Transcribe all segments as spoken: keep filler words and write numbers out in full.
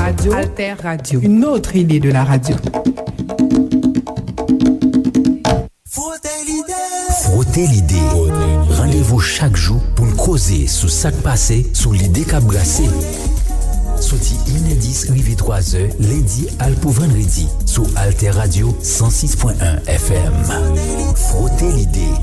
Radio. Alter Radio. Une autre idée de la radio. Frote l'idée. Frote l'idée. Randevou chak jou pou n koze sou sa k pase, sou lide k ap brase. Soti inè dis rive twazè, lendi al pou vandredi, sou Alter Radio san sis pwen en F M. Frote l'idée.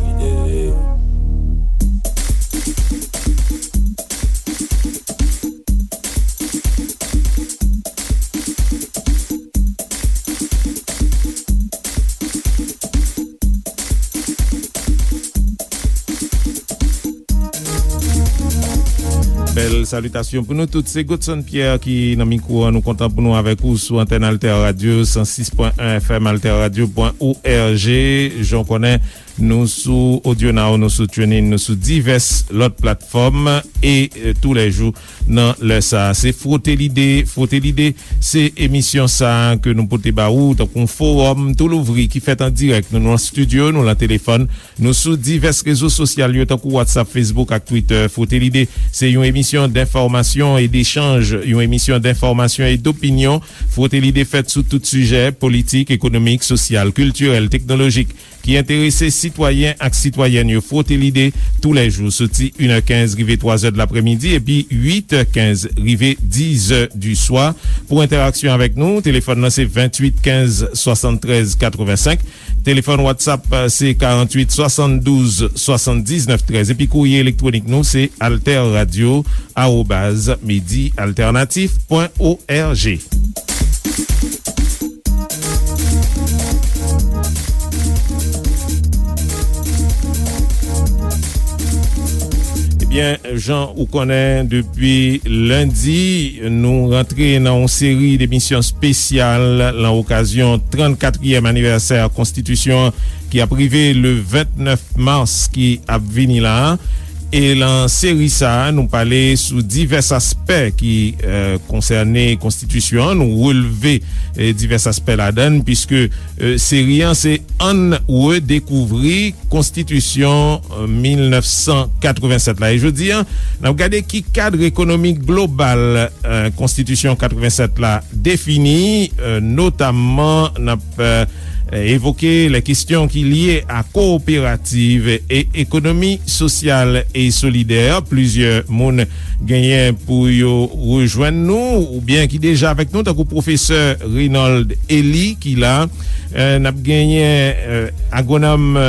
Bèl salitasyon pou nou tout. Se Godson Pierre ki nan mikwo an. Nou kontan pou nou avèk ou sou antèn Alter Radio san sis pwen en F M, alter radio pwen org. Jan w konnen, nou sou Audio Now, nou sou TuneIn, nou sou divès lòt platfòm e, e, toulèjou nan lè sa a. Se Frote Lide. Frote Lide, se emisyon sa a ke nou pote ba ou tankou yon fowòm tou louvri ki fèt an dirèk. Nou nan estidyo, nou nan telefòn, nou sou divès rezo sosyal yo tankou WhatsApp, Facebook ak Twitter. Frote Lide, se yon emisyon denfòmasyon e dechanj, yon emisyon denfòmasyon e dopinyon. Frote Lide fèt sou tout sijè, politik, ekonomik, sosyal, kiltirèl, teknolojik, ki enterese sitwayen ak sitwayèn yo. Frote Lide, toulèjou, soti inè kenz rive twazè de laprèmidi, epi uitè kenz rive dizè di swa. Pou entèraksyon avèk nou, telefòn nan se venntuit kenz swasanntrèz katrevensenk. Telefòn WhatsApp, se karanntuit swasanndouz swasanndiznèf trèz. Epi kourye elektwonik nou, se alterradio arobaz medialternatif pwen org. Ebyen, jan ou konnen, depi lendi, nou rantre nan yon seri demisyon espesyal lan okazyon trannkatriyèm anivèsè Konstitisyon an ki ap rive le vennèf mas ki ap vini la a. E lan seri sa a, nou pale sou divès aspè ki, e, konsène Konstitisyon an. Nou relve, e, divès aspè ladan l, piske, e, seri an se Ann redekouvri Konstitisyon, e, mil nèf san katrevennsèt la. E jodi a, n ap gade ki kad ekonomik global, e, Konstitisyon katrevennsèt la defini, e, notamman n ap, e, evoke lè kesyon ki lye a kowoperativ e ekonomi sosyal e solidè. Plizyè moun genyen pou yo rejwenn nou, oubyen ki deja avèk nou, tankou pwofesè Reynold Elie ki la. E, n ap genyen, e, agwonòm, e,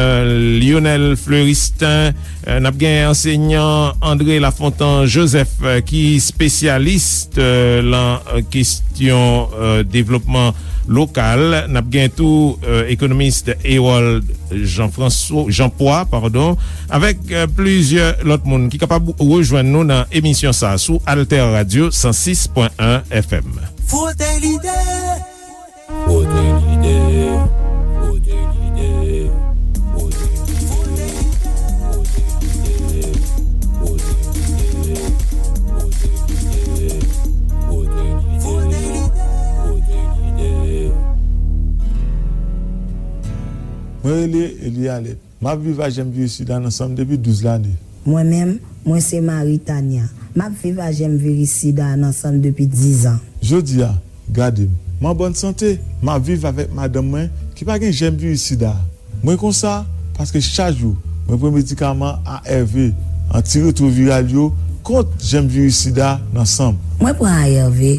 Lionel Fleuristin, e, n ap genyen ansenyan André Lafontant Joseph, e, ki espesyalis, e, lan, e, kesyon, e, devlopman lokal. N ap gen tou, e, ekonomis Herold Jean François, Jean Poix, padon, avèk, e, plizyè lòt moun ki kapab rejwenn nou nan emisyon sa a sou Alter Radio san sis pwen en F M. Frote Lide. Frote Lide. Frote Lide. Frote Lide. Frote Lide. Frote Lide. Frote Lide. Frote Lide. Frote Lide. Frote Lide. Mwen rele Elie Alette. M ap viv ak jèm viris sida nan san m depi douz lane. Mwen menm, mwen se Marie Tania. M ap viv ak jèm viris sida a nan san m depi diz an. Jodi a, gade m. M an bòn sante. M ap viv avèk madanm mwen ki pa gen jèm viris sida a. Mwen konsa paske chak jou mwen pran medikaman A R V, antiretwoviral yo, kont jèm viris sida nan san m. Mwen pran A R V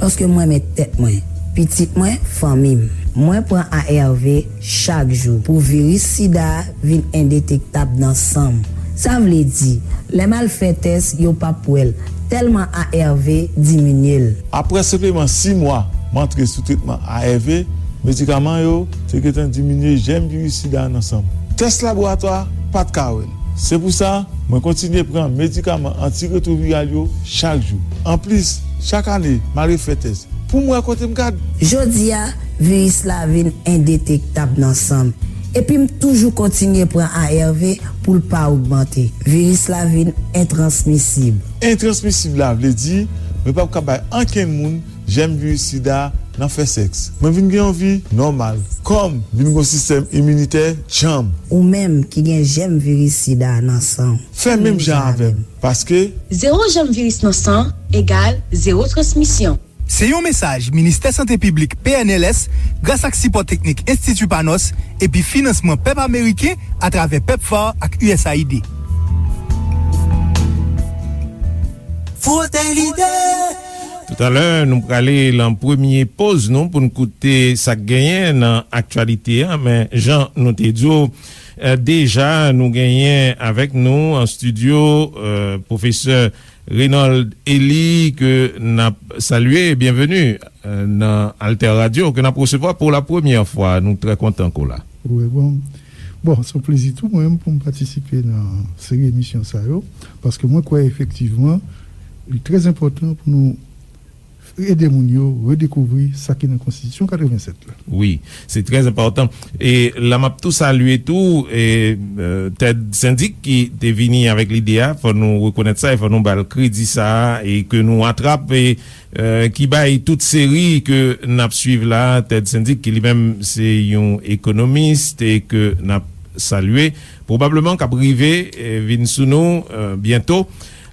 paske m renmen tèt mwen, pitit mwen, fanmi m. Mwen pran A R V chak jou pou viris sida a vin endetektab nan san m. Sa vle di, lè m al fè tès, yo p ap wè l, tèlman A R V diminye l. Apre senpleman sis mwa m antre sou tretman A R V, medikaman yo te gentan diminye jèm viris sida a nan san m. Tès laboratwa pa t ka wè l. Se pou sa, mwen kontinye pran medikaman antiretwoviral yo chak jou. Anplis, chak ane, m al refè tès pou m wè kote m gad. Jodi a, viris la vin endetektab nan san m. Epi m toujou kontinye pran A R V pou l pa ogmante. Viris la vin entransmisib. Entransmisib la vle di, mwen p ap ka bay ankenn moun jèm viris sida nan fè sèks. Mwen vin gen yon vi nòmal. Kò m vin gen yon sistèm iminitè djanm. Ou menm ki gen jèm viris sida nan san w, fè menm jan avè m, paske zewo jèm viris nan san egal zewo transmisyon. Se yon mesaj Ministè Sante Piblik, P N L S, gras ak sipò teknik Enstiti Panos epi finansman pèp ameriken atravè pepfar ak U S A I D. Frote lide. Toutalè, nou prale lan premye poz nou pou n koute sa k genyen nan aktyalite a, men jan nou te di w, eh, deja, nou genyen avèk nou an estidyo, eh, pwofesè Reynold Elie, ke n ap salye. Byenveni, eh, nan Alter Radio, ke n ap resevwa pou la premyè fwa. Nou trè kontan ke w la. Wi, bon. Bon, se yon plezi tou mwen menm pou m patisipe nan seri emisyon sa yo, paske mwen kwè efektivman, li trè enpòtan pou nou ede moun yo redekouvri sa ki nan Konstitisyon katrevennsèt la. Wi, se trè enpòtan. E la m ap tou salye tou, e, eh, Ted Syndic ki te vini avèk lide a, fò nou rekonèt sa, e fò nou ba l kredi sa a, e ke nou atrap, e, eh, ki bay tout seri ke n ap swiv la, Ted Syndic, ki li menm se yon ekonomis, e ke n ap salye, pwobableman k ap rive, eh, vin sou nou, eh, byento.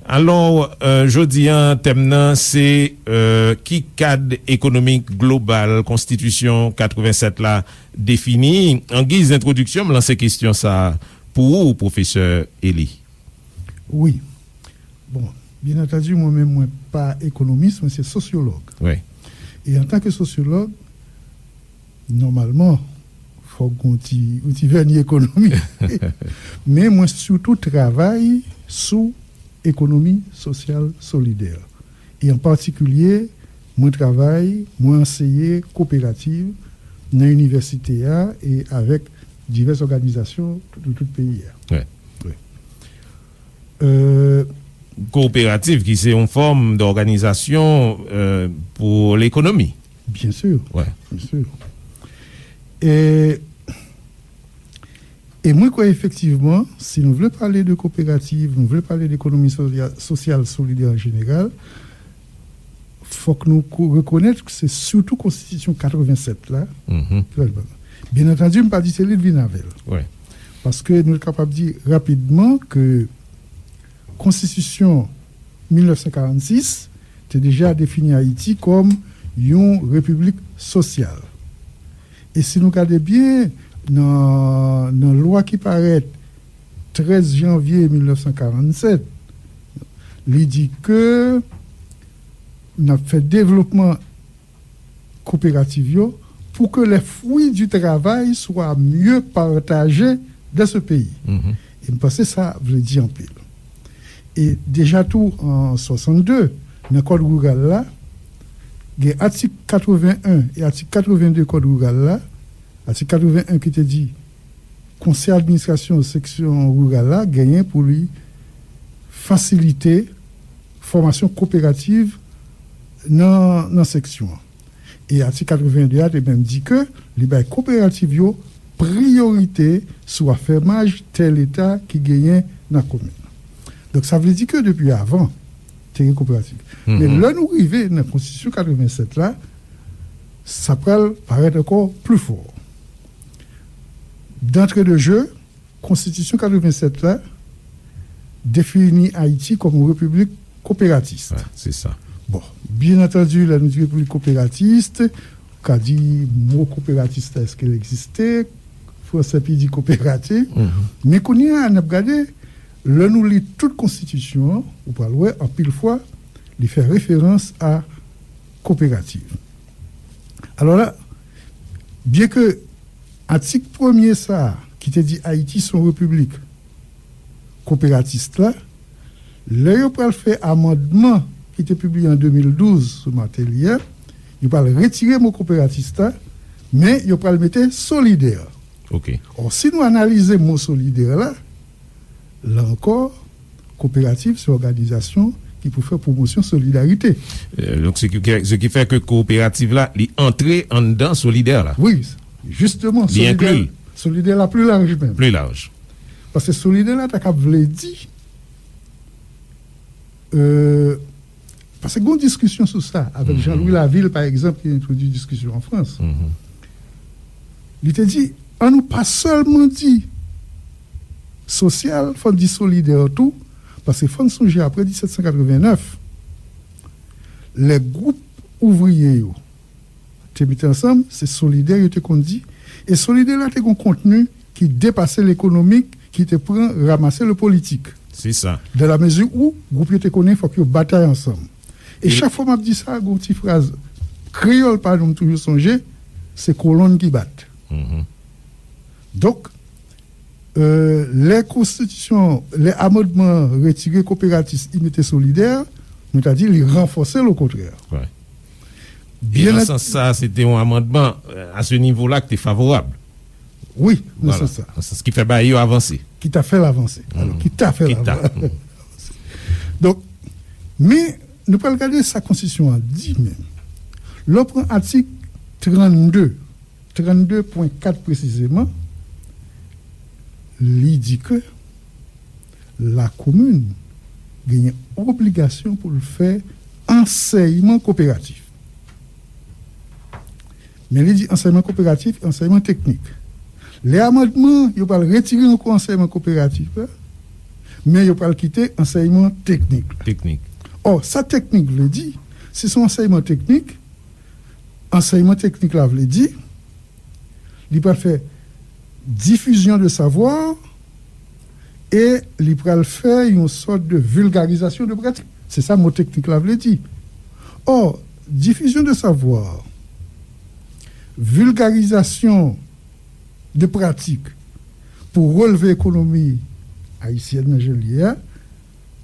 Alò, eh, jodi a, tèm nan se, eh, ki kad ekonomik global Konstitisyon katrevennsèt la defini? An giz entwodiksyon, m lanse kesyon sa a pou ou, pwofesè Elie. Wi. Bon, byen antandi, mwen menm, mwen pa ekonomis, mwen se sosyològ. Wi. E antanke sosyològ, nòmalman, fòk gon ti, yon ti vèni ekonomi. Men mwen sitou travay sou ekonomi sosyal solidè. E an patikilye, mwen travay, mwen anseye koperativ nan inivèsite a e avèk divès òganizasyon de tout peyi a. Wi. Wi. Euh, Kooperativ ki se yon fòm dòganizasyon, euh, pou lekonomi. Byen si. Wi. Byen si. E, e mwen kwè efektivman, si nou vle pale de kooperativ, nou vle pale de ekonomi sosya-, sosyal solidè an jeneral, fòk nou ko-, rekonèt ke se sitou Konstitisyon katrevennsèt la. Mhm. Byen antandi, m pa di se li k vin avè l. Wi. Paske nou kapab di rapidman ke Konstitisyon mil nèf san karannsis te deja defini Ayiti kòm yon repiblik sosyal. E si nou gade byen, nan, nan lwa ki parèt trèz janvye mil nèf san karannsèt, li di ke n ap fè devlopman kooperativ yo pour que les fruits du travail soient mieux partagés dans ce pays. Mhm. E m panse sa vle di anpil. E deja tou an swasannde, nan Kòd Riral la, gen atik katrevenn en e atik katrevenn de Kòd Riral la, atik katrevenn en ki te di Konsèy Administrasyon Seksyon Riral la genyen pou li fasilite fòmasyon kooperativ nan, nan seksyon an. E atik katrevenn de a te menm di ke li bay kooperativ yo priyorite sou afèmaj tè Leta ki genyen nan komin. Donk, sa vle di ke depi avan, te gen kooperativ. Men lè nou rive nan Konstitisyon katrevennsèt la, sa pral parèt ankò pli fò. D'entrée de jeu, Konstitisyon katrevennsèt la defini Ayiti kòm yon repiblik kooperatis. Wi, se sa. Bon, byen antandi, lè nou di repiblik kooperatis, ou ka di mo kooperatis la, èske l egziste? Fransè pi di kooperativ. Mhm. Men kounye a, n ap gade, lè nou li tout konstitisyon an, ou pral wè, anpil fwa, li fè referans a kooperativ. Alò la, byen ke atik premye sa a, ki te di Ayiti se yon repiblik kooperatis la, lè yo pral fè amandman ki te pibliye an de mil douz sou Martelly a, yo pral retire mo kooperatis la, men yo pral mete solidè. Ok. Or, si nou analize mo solidè la, la ankò, kooperativ se òganizasyon ki pou fè pwomosyon solidarite. Euh, donc, ce qui, ce qui fait que kooperativ la, li antre anndan solidè la. Wi, jisteman, li solidè, enkli l. Solidè la pli laj menm. Pli laj. Paske solidè la ta kab vle di, euh, paske gon diskisyon sou sa avèk Jean-Louis Laville, pa egzanp, ki entwodui diskisyon an Frans. Mhm. Li te di, ann nou pa sèlman di sosyal, fò n di solidè tou, paske fò n sonje apre disèt san katrevennnèf, lè gwoup ouvriye yo te mete ansanm, se Solidè yo te konn di, e Solidè la te gen yon kontni ki depase lekonomik, ki te pran ramase le politik. Se sa. Dan la mezi ou gwoup yo te konnen fòk yo batay ansanm. E chak fwa m ap di sa, gen yon ti fraz kreyòl pa nou m toujou sonje, se kolonn ki bat. Donk, euh, lè konstitisyon, lè amandman retire kooperatis, li mete Solidè, nou ta di li ranfòse l okontrè. Byen nan sans sa, se te yon amandman, euh, a se nivo la ki te favorab. Wi, nan sans sa. Nan sans ki fè bagay yo avanse. Ki ta fè l avanse. Alò, ki ta fè l avanse. Donk, men, nou pral gade sa konstitisyon an di menm. Lè w pran atik trannde, trannde pwen kat presizeman, li di ke lakomin genyen obligasyon pou l fè ansèyman koperatif. Men li di ansèyman koperatif, ansèyman teknik. Lè amandman, yo pral retire ankò ansèyman koperatif la, men yo pral kite ansèyman teknik la. Teknik. Ò, sa teknik vle di, si se yon ansèyman teknik, ansèyman teknik la vle di, li pral fè diffusion de savoir e li pral fè yon sòt de vulgarisation de pratique. Se sa mo teknik la vle di. Ò, diffusion de savoir, vulgarisation de pratique pou releve ekonomi ayisyèn nan jan l ye a,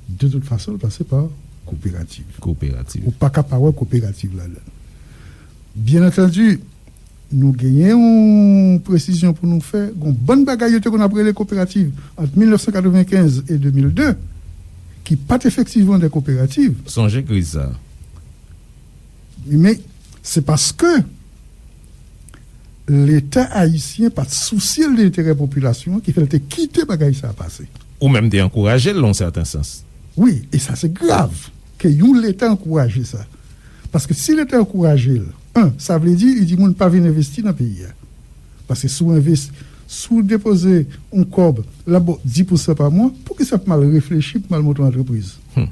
de tout fason, l pase pa kooperativ. Kooperativ. Ou pa ka pa wè kooperativ ladan l. Byen antandi, nou genyen yon presizyon pou nou fè. Gon bann bagay yo te konn ap rele kooperativ ant mil nèf san katrevenkenz e de mil de, ki pa t efektivman de kooperativ. Sonje kriz sa. Men, se paske Leta ayisyen pa t sousye l de enterè popilasyon an, ki fè l te kite bagay sa a pase. Ou menm te ankouraje l, nan yon sèten sans. Wi, e sa se grav, ke yon Leta ankouraje sa. Paske si Leta ankouraje l, en, sa vle di, li di moun pa vin envesti nan peyi a. Paske si w envesti, si w depoze yon kòb, l ap ba w dis pousan pa mwa, poukisa w ap mal reflechi pou mal monte yon antrepriz? Hmm.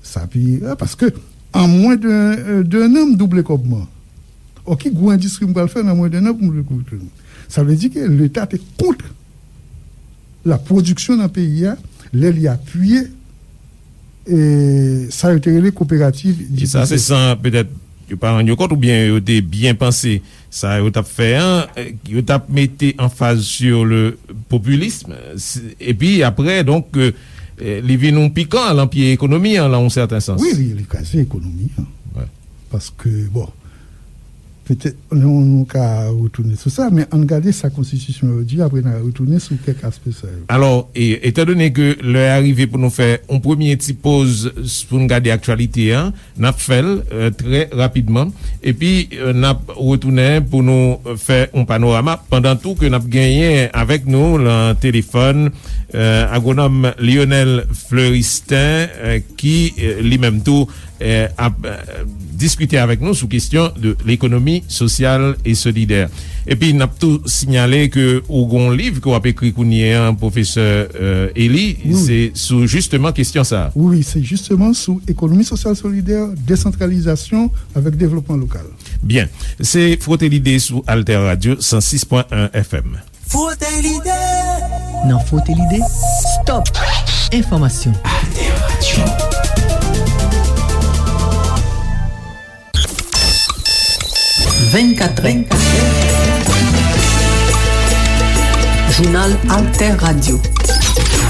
Sa pi, a, paske an mwen de, de, de an, m double kòb mwen. Ò, ki gwo endistri m pral fè nan mwen de an pou m double kòb mwen? Sa vle di ke Leta te kont la pwodiksyon nan peyi a, lè li apiye, e, sa yo te rele kooperativ. E sa, se san, petèt, yo pa rann yo kont oubyen yo te byen panse sa yo t ap fè an, eh, yo t ap mete anfaz sur le populisme, s-, epi apre, donk, eh, eh, li vin yon pikan lan pye ekonomi an, lan yon sèten sans. Wi, li, li kraze ekonomi an. Wi. Paske, bon, petèt, nou, nou ka retounen sou sa, men ann gade sa konstitisyon yo di, apre n a retounen sou kèk aspè sa yo. Alò, e, etandone ke lè a rive pou nou fè yon premye ti poz s-, pou n gade aktyalite an, n ap fè l, eh, trè rapidman. Epi, eh, n ap retounen pou nou, eh, fè yon panorama. Pandan tou ke n ap genyen avèk nou lan telefòn, eh, agwonòm Lionel Fleuristin, eh, ki, eh, li menm tou, eh, ap, eh, diskite avèk nou sou kesyon de lekonomi sosyal e solidè. Epi, n ap tou sinyale ke ou gon liv ke w ap ekri kounye a, pwofesè, eh, Eli, wi, se sou jisteman kesyon sa a. Wi, wi, se jisteman sou ekonomi sosyal solidè, desantralizasyon avèk devlopman lokal. Byen. Se Frote Lide sou Alter Radio san sis pwen en F M. Frote Lide. Nan Frote Lide, stop enfòmasyon. Alter Radio. Vennkat è. Jounal Alter Radio.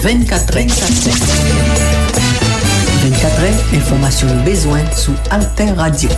Vennkat è. Vennkat è, enfòmasyon ou bezwen sou Alter Radio.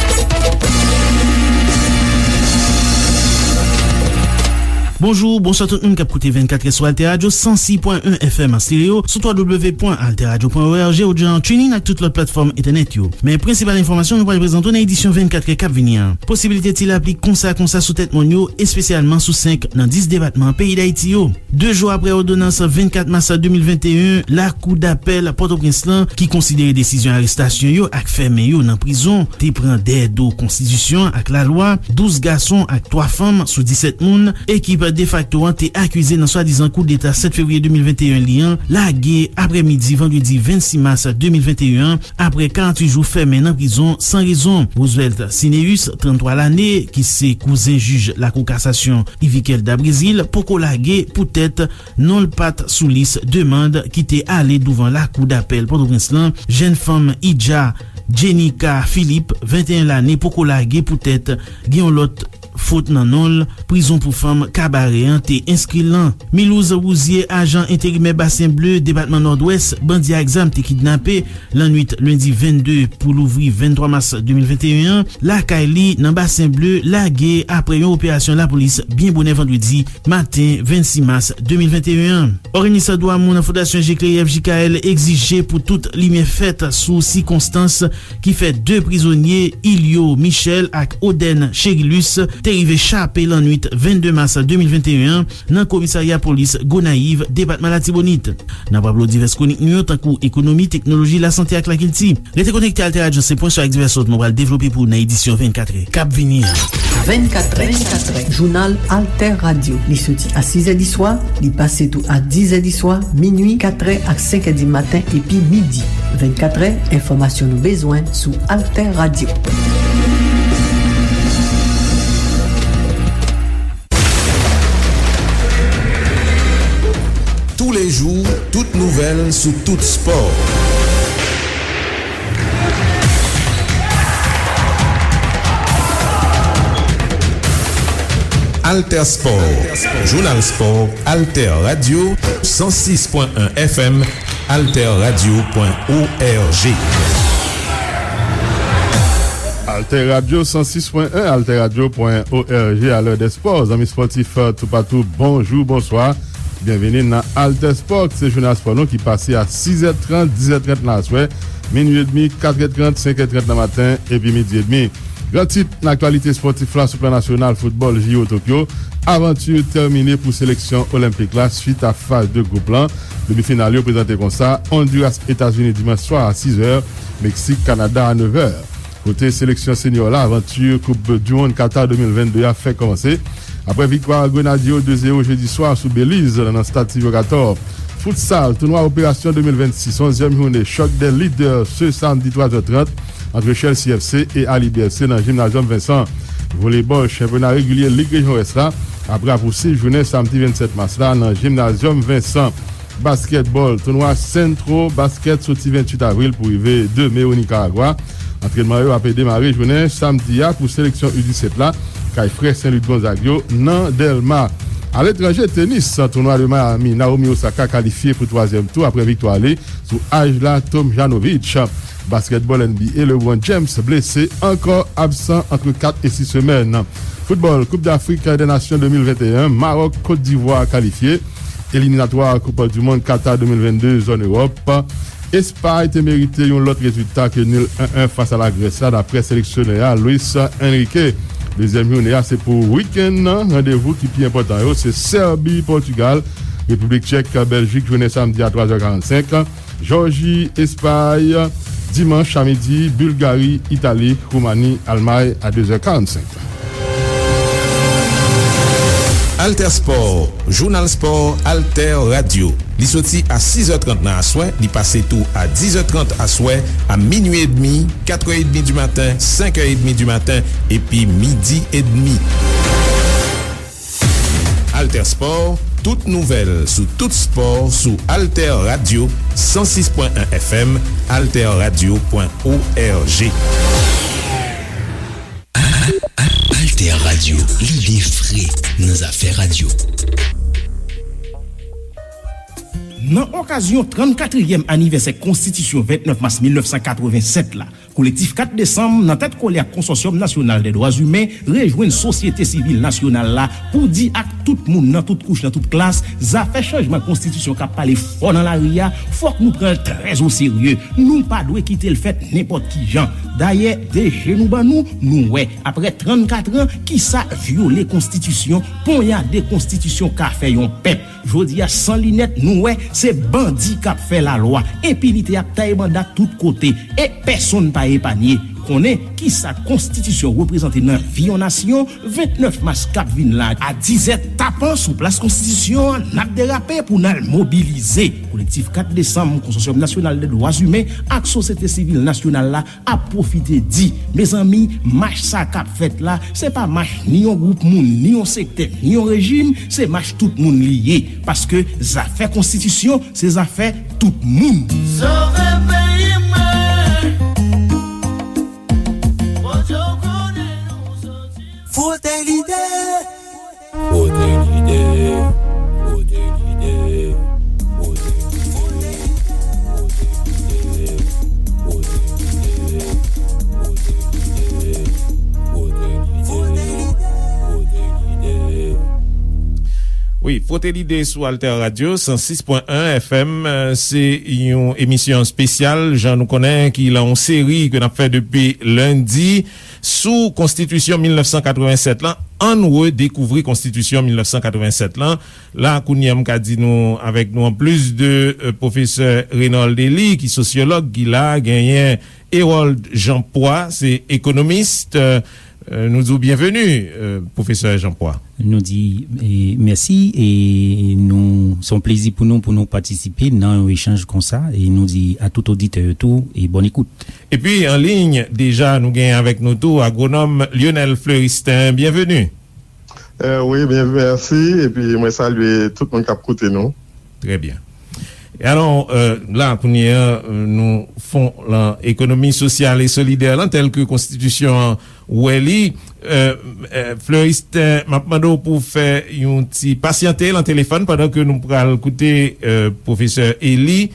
Bonjou, bonswa tout moun k ap koute vennkat è sou Alter Radio san sis pwen en F M an stereo, sou twa w w w pwen alter radio pwen o r g, ou jan TuneIn ak tout lòt platfòm entènèt yo. Men prensipal enfòmasyon nou pral prezante w nan edisyon vennkat è k ap vini an. Posiblite ti lapli konsa konsa sou tèt mòn yo, espesyalman sou senk nan dis depatman peyi Dayiti yo. De jou apre òdonans vennkat mas de mil venteyen, Lakou dapèl Pòtoprens lan, ki konsidere desizyon arestasyon yo ak fèmen yo nan prizon, te pran dèyè do konstitisyon ak lalwa, douz gason ak twa fanm sou disèt moun, ekip defakto an te akize nan swadizan koudeta sèt fevriye de mil venteyen li an, lage aprèmidi vandredi vennsis mas de mil venteyen an, apre karanntuit jou fèmen nan prizon san rezon. Roosevelt Cineus, tranntwa lane, ki se kouzen jij Lakou Kasasyon Yviquel da Brésil, poko lage poutèt non l pa t sou lis demann ki te ale douvan Lakou Dapèl Pòtoprens lan. Jèn fanm Idja Jenica Philippe, venteyen lane, poko lage poutèt gen yon lòt fot nan non l. Prizon pou fanm Kabarè an te enskri l lan. Milouz Rouzier, ajan enterimè Basen Ble, depatman Nòdwès, bandi ak zam te kidnape lannwit lendi vennde pou louvri venntwa mas de mil venteyen an, lakay li nan Basen Ble, lage apre yon operasyon lapolis byen bonè vandredi maten vennsis mas de mil venteyen an. Òganis dwa moun Fondasyon Jekleyev, J K L, egzije pou tout limyè fèt sou sikonstans ki fè de prizonye, Ilio Michel ak Oden Cherilus, te rive chape lannwit vennde mas de mil venteyen an nan komisarya polis Gonayiv, depatman Latibonit. N ap raple w divès kwonik nou yo, tankou ekonomi, teknoloji, lasante ak lakilti. Rete konekte Alter Radio, se pwen sou ak divès lòt nou pral devlope pou w nan edisyon vennkatrè k ap vini an. Vennkatrè, vennkatrè, jounal Alter Radio. Li soti a sizè di swa, li pase tou a dizè di swa, minui, katrè ak senkè di maten, epi midi. Vennkatrè, enfòmasyon nou bezwen sou Alter Radio. Tous les jours, toute nouvelle sous tout sport. Alter Sport, Jounal Spò, Alter Radio, san sis pwen en F M, alterradio pwen org. Alter Radio san sis pwen en, alterradio pwen org, alè dè spò. Zanmi spòtif, toupatou, bonjou, bonswa. Byenvini nan Alter Spò, se jounal spò nou ki pase a sizè trant, dizè trant nan aswè, minui edmi, katrè trant, senkè trant nan maten, epi midi edmi. Gran tit nan aktyalite spòtif la sou plan nasyonal, foutbòl, J O Tokyo, avanti tèmine pou seleksyon olenpik la swit a faz de gwoup lan. Demi final yo prezante konsa: Ondiras, Etazini dimanch swa a sizè, Meksik, Kanada a nevè. Kote seleksyon senyò la, avanti koup du mond Qatar de mil vennde a fèk kòmanse. Apre viktwa Grenadye yo de zewo jedi swa sou Beliz nan stad Silvio Cator. Futsal, tounwa operasyon de mil vennsis, onzyèm jounen, chòk dè lidè se samdi twa zè trant ant Chelsea F C e Alibi F C nan Gymnasium Vincent. Voleybòl, chanpyona regilye Lig Rejyon Wès la ap rapousiv jounen samdi vennsèt mas la nan Gymnasium Vincent. Baskètbòl, tounwa Centro Basket soti venntuit avril pou rive de me o Nikaragwa. Antrènman yo ap demare jounen samdi a pou seleksyon U disèt la, kay frè Sen Lik Gonzag yo nan Dèlma. Aletranje, tenis, tounwa de Miami, Naomi Osaka kalifye pou twazyèm tou apre viktwa li sou Ajla Tomjanovic. Baskètbòl N B A, LeBron James blese ankò, absan ant kat e sis semèn. Foutbòl, Koup Dafrik dè Nasyon de mil venteyen, Mawòk, Kot Divwa kalifye. Eliminatwa Koup di Mond Qatar de mil vennde, zòn Ewòp. Espay te merite yon lòt rezilta ke nil en en fas a Lagrès la, daprè seleksyonè a, Luis Enrique. Dezyèm jounen an se pou wikenn nan. Randevou ki pi enpòtan yo se Sèbi, Pòtigal, Repiblik Tchèk, Bèljik, jounen samdi a twa zè karannsenk. Jòji, Espay, dimanch a midi, Bilgari, Itali, Woumani, Almay a de zè karannsenk. Alter Sport, Jounal Spò, Alter Radio. Li soti a sis è trant nan aswè, li pase tou a diz è trant aswè, a minui edmi, kat è edmi di maten, senk è edmi di maten, epi midi edmi. Alter Sport, tout nouvèl sou tout spò sou Alter Radio san sis pwen en F M, alterradio pwen org. Alter Radio, lide fre nan zafè radyo. Nan okazyon trannkatriyèm anivèsè Konstitisyon vennèf mas mil nèf san katrevennsèt la, Kolektif kat Desanm, nan tèt kole ak Konsòsyòm Nasyonal dè Dwa Imen, rejwenn sosyete sivil nasyonal la pou di ak tout moun nan tout kouch, nan tout klas, zafè chanjman konstitisyon k ap pale fò nan lari a, fòk nou pran l trè o serye. Nou pa dwe kite l fèt nenpòt ki jan. Dayè, de je nou ban nou, nou wè, apre trannkat an, kisa vyole konstitisyon, ponyade konstitisyon ka fè yon pèp. Jodi a, san linèt, nou wè se bandi k ap fè lalwa. Enpinite ap taye banda tout kote, e pèsonn pa epanye. Konnen kisa konstitisyon reprezante nan vi yon nasyon, vennèf mas k ap vin la a dizè tapan sou plas konstitisyon an, n ap derape pou n al mobilize. Kolektif kat desanm, Konsosyòm Nasyonal de Dwa Imen ak Sosyete Sivil Nasyonal la ap pwofite di, mezanmi, mach sa k ap fèt la, se pa mach ni yon gwoup moun, ni yon sektè, ni yon rejim, se mach tout moun li ye. Paske zafè konstitisyon, se zafè tout moun. Sove peyi mwen. Frote l'idée. Frote l'idée. Frote l'idée. Frote l'idée. Frote l'idée. Frote l'idée. Frote l'idée. Frote l'idée. Wi, Frote l'idée sou Alter Radio, san sis pwen en F M, euh, se yon emisyon espesyal, jan nou konnen, ki lan yon seri ke n ap fè depi lendi sou Konstitisyon mil nèf san katrevennsèt lan. Ann redekouvri Konstitisyon mil nèf san katrevennsèt lan. La, kounye a, m ka di nou, avèk nou, an plis de, euh, pwofesè Reynold Elie, ki sosyològ, ki la, genyen Hérold Jean Poix, se ekonomis. Euh, euh, nou di w byenveni, euh, pwofesè Jean Poix. Nou di, e, mèsi, e nou, se yon plezi pou nou, pou nou patisipe nan yon echanj konsa, e nou di a tout oditè yo tou, e bòn ekout. Epi, an liy, deja, nou genyen avèk nou tou agwonòm Lionel Fleuristin. Byenveni. Eh, wi, byen, mèsi. Epi, mwen salye tout moun k ap koute nou. Trè byen. E alò, euh, la, kounye a, euh, nou fon lan ekonomi sosyal e solidè lan, tèl ke konstitisyon an wè li. Euh, euh, Fleuristin, m ap mande w pou w fè yon ti pasyante lan telefòn pandan ke nou pral koute, euh, pwofesè Elie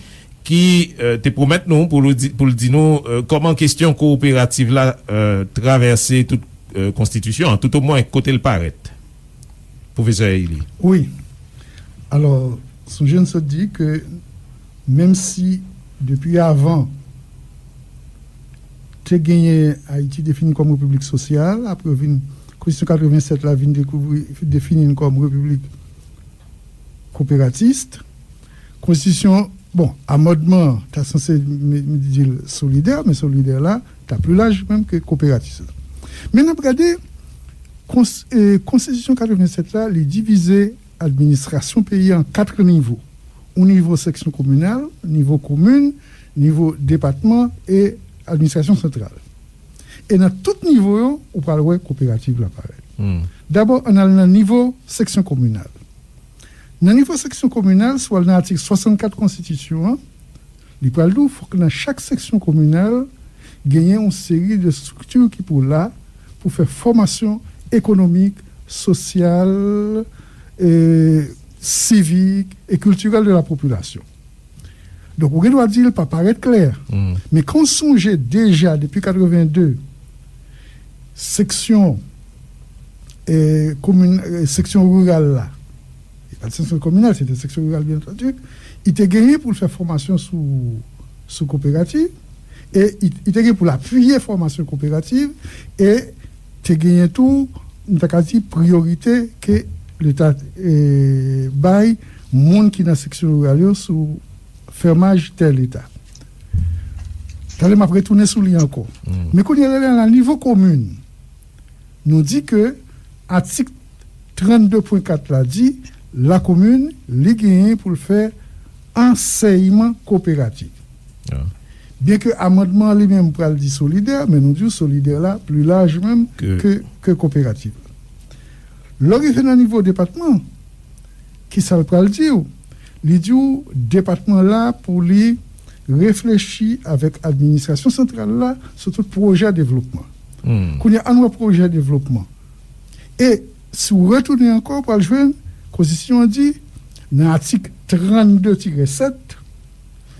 ki, euh, te pwomèt nou pou l di, pou l di nou, euh, kòman kesyon kowoperativ la, euh, travèse tout, euh, konstitisyon an, toutomwen kote l parèt. Pwofesè Elie. Wi. Alò, sonje n sot di ke menm si depi avan te genyen Ayiti defini kòm repiblik sosyal, apre vin, konstitisyon katrevennsèt la vin dekouvri, defini n kòm repiblik kowoperatis. Konstitisyon, bon, amandman an ta sanse m, m di l solidè, men solidè la ta pli laj menm ke kowoperatis la. Men n ap gade kons, e, konstitisyon katrevennsèt la, li divize administrasyon peyi a an kat nivo. Yon nivo seksyon kominal, nivo komin, nivo depatman e administrasyon santral. E nan tout nivo yo, ou pral wè kowoperativ la parèt. Hmm. Dabò, ann al nan nivo seksyon kominal. Nan nivo seksyon kominal, si w al nan atik swasannkat konstitisyon an, li pral di w fòk nan chak seksyon kominal, genyen yon seri de estrikti ki pou la pou fè fòmasyon ekonomik, sosyal, e, sivik e kiltirèl de la popilasyon. Donk, ou gen dwa di l pa parèt klè. Hmm. Men kan w sonje deja depi katrevenn de, seksyon, e, komin, e, seksyon riral la, e pa t seksyon kominal, se te seksyon riral, byen antandi, li te genyen pou l fè fòmasyon sou, sou kowoperativ, e li, li te gen pou l apiye fòmasyon kowoperativ, e te genyen tou, nou ta ka di, priyorite ke Leta, e, bay moun ki nan seksyon riral yo sou fèmaj tè Leta. Talè m ap retounen sou li ankò. Hmm. Men kounye a la, nan nivo komin, nou di ke atik trannde pwen kat la di, lakomin, li genyen pou l fè ansèyman kowoperatif. Ah. Byen ke amandman an li menm pral di solidè, men nou di w solidè la pli laj menm ke, ke, ke kowoperatif. Lè w rive nan nivo depatman, kisa l pral di w? Li di w depatman la pou li reflechi avèk administrasyon santral la sou tout pwojè devlopman. Hmm. Kounye a, ann wè pwojè devlopman. E si w retounen ankò, w pral jwenn konstitisyon an di, nan atik trannde tirè sèt,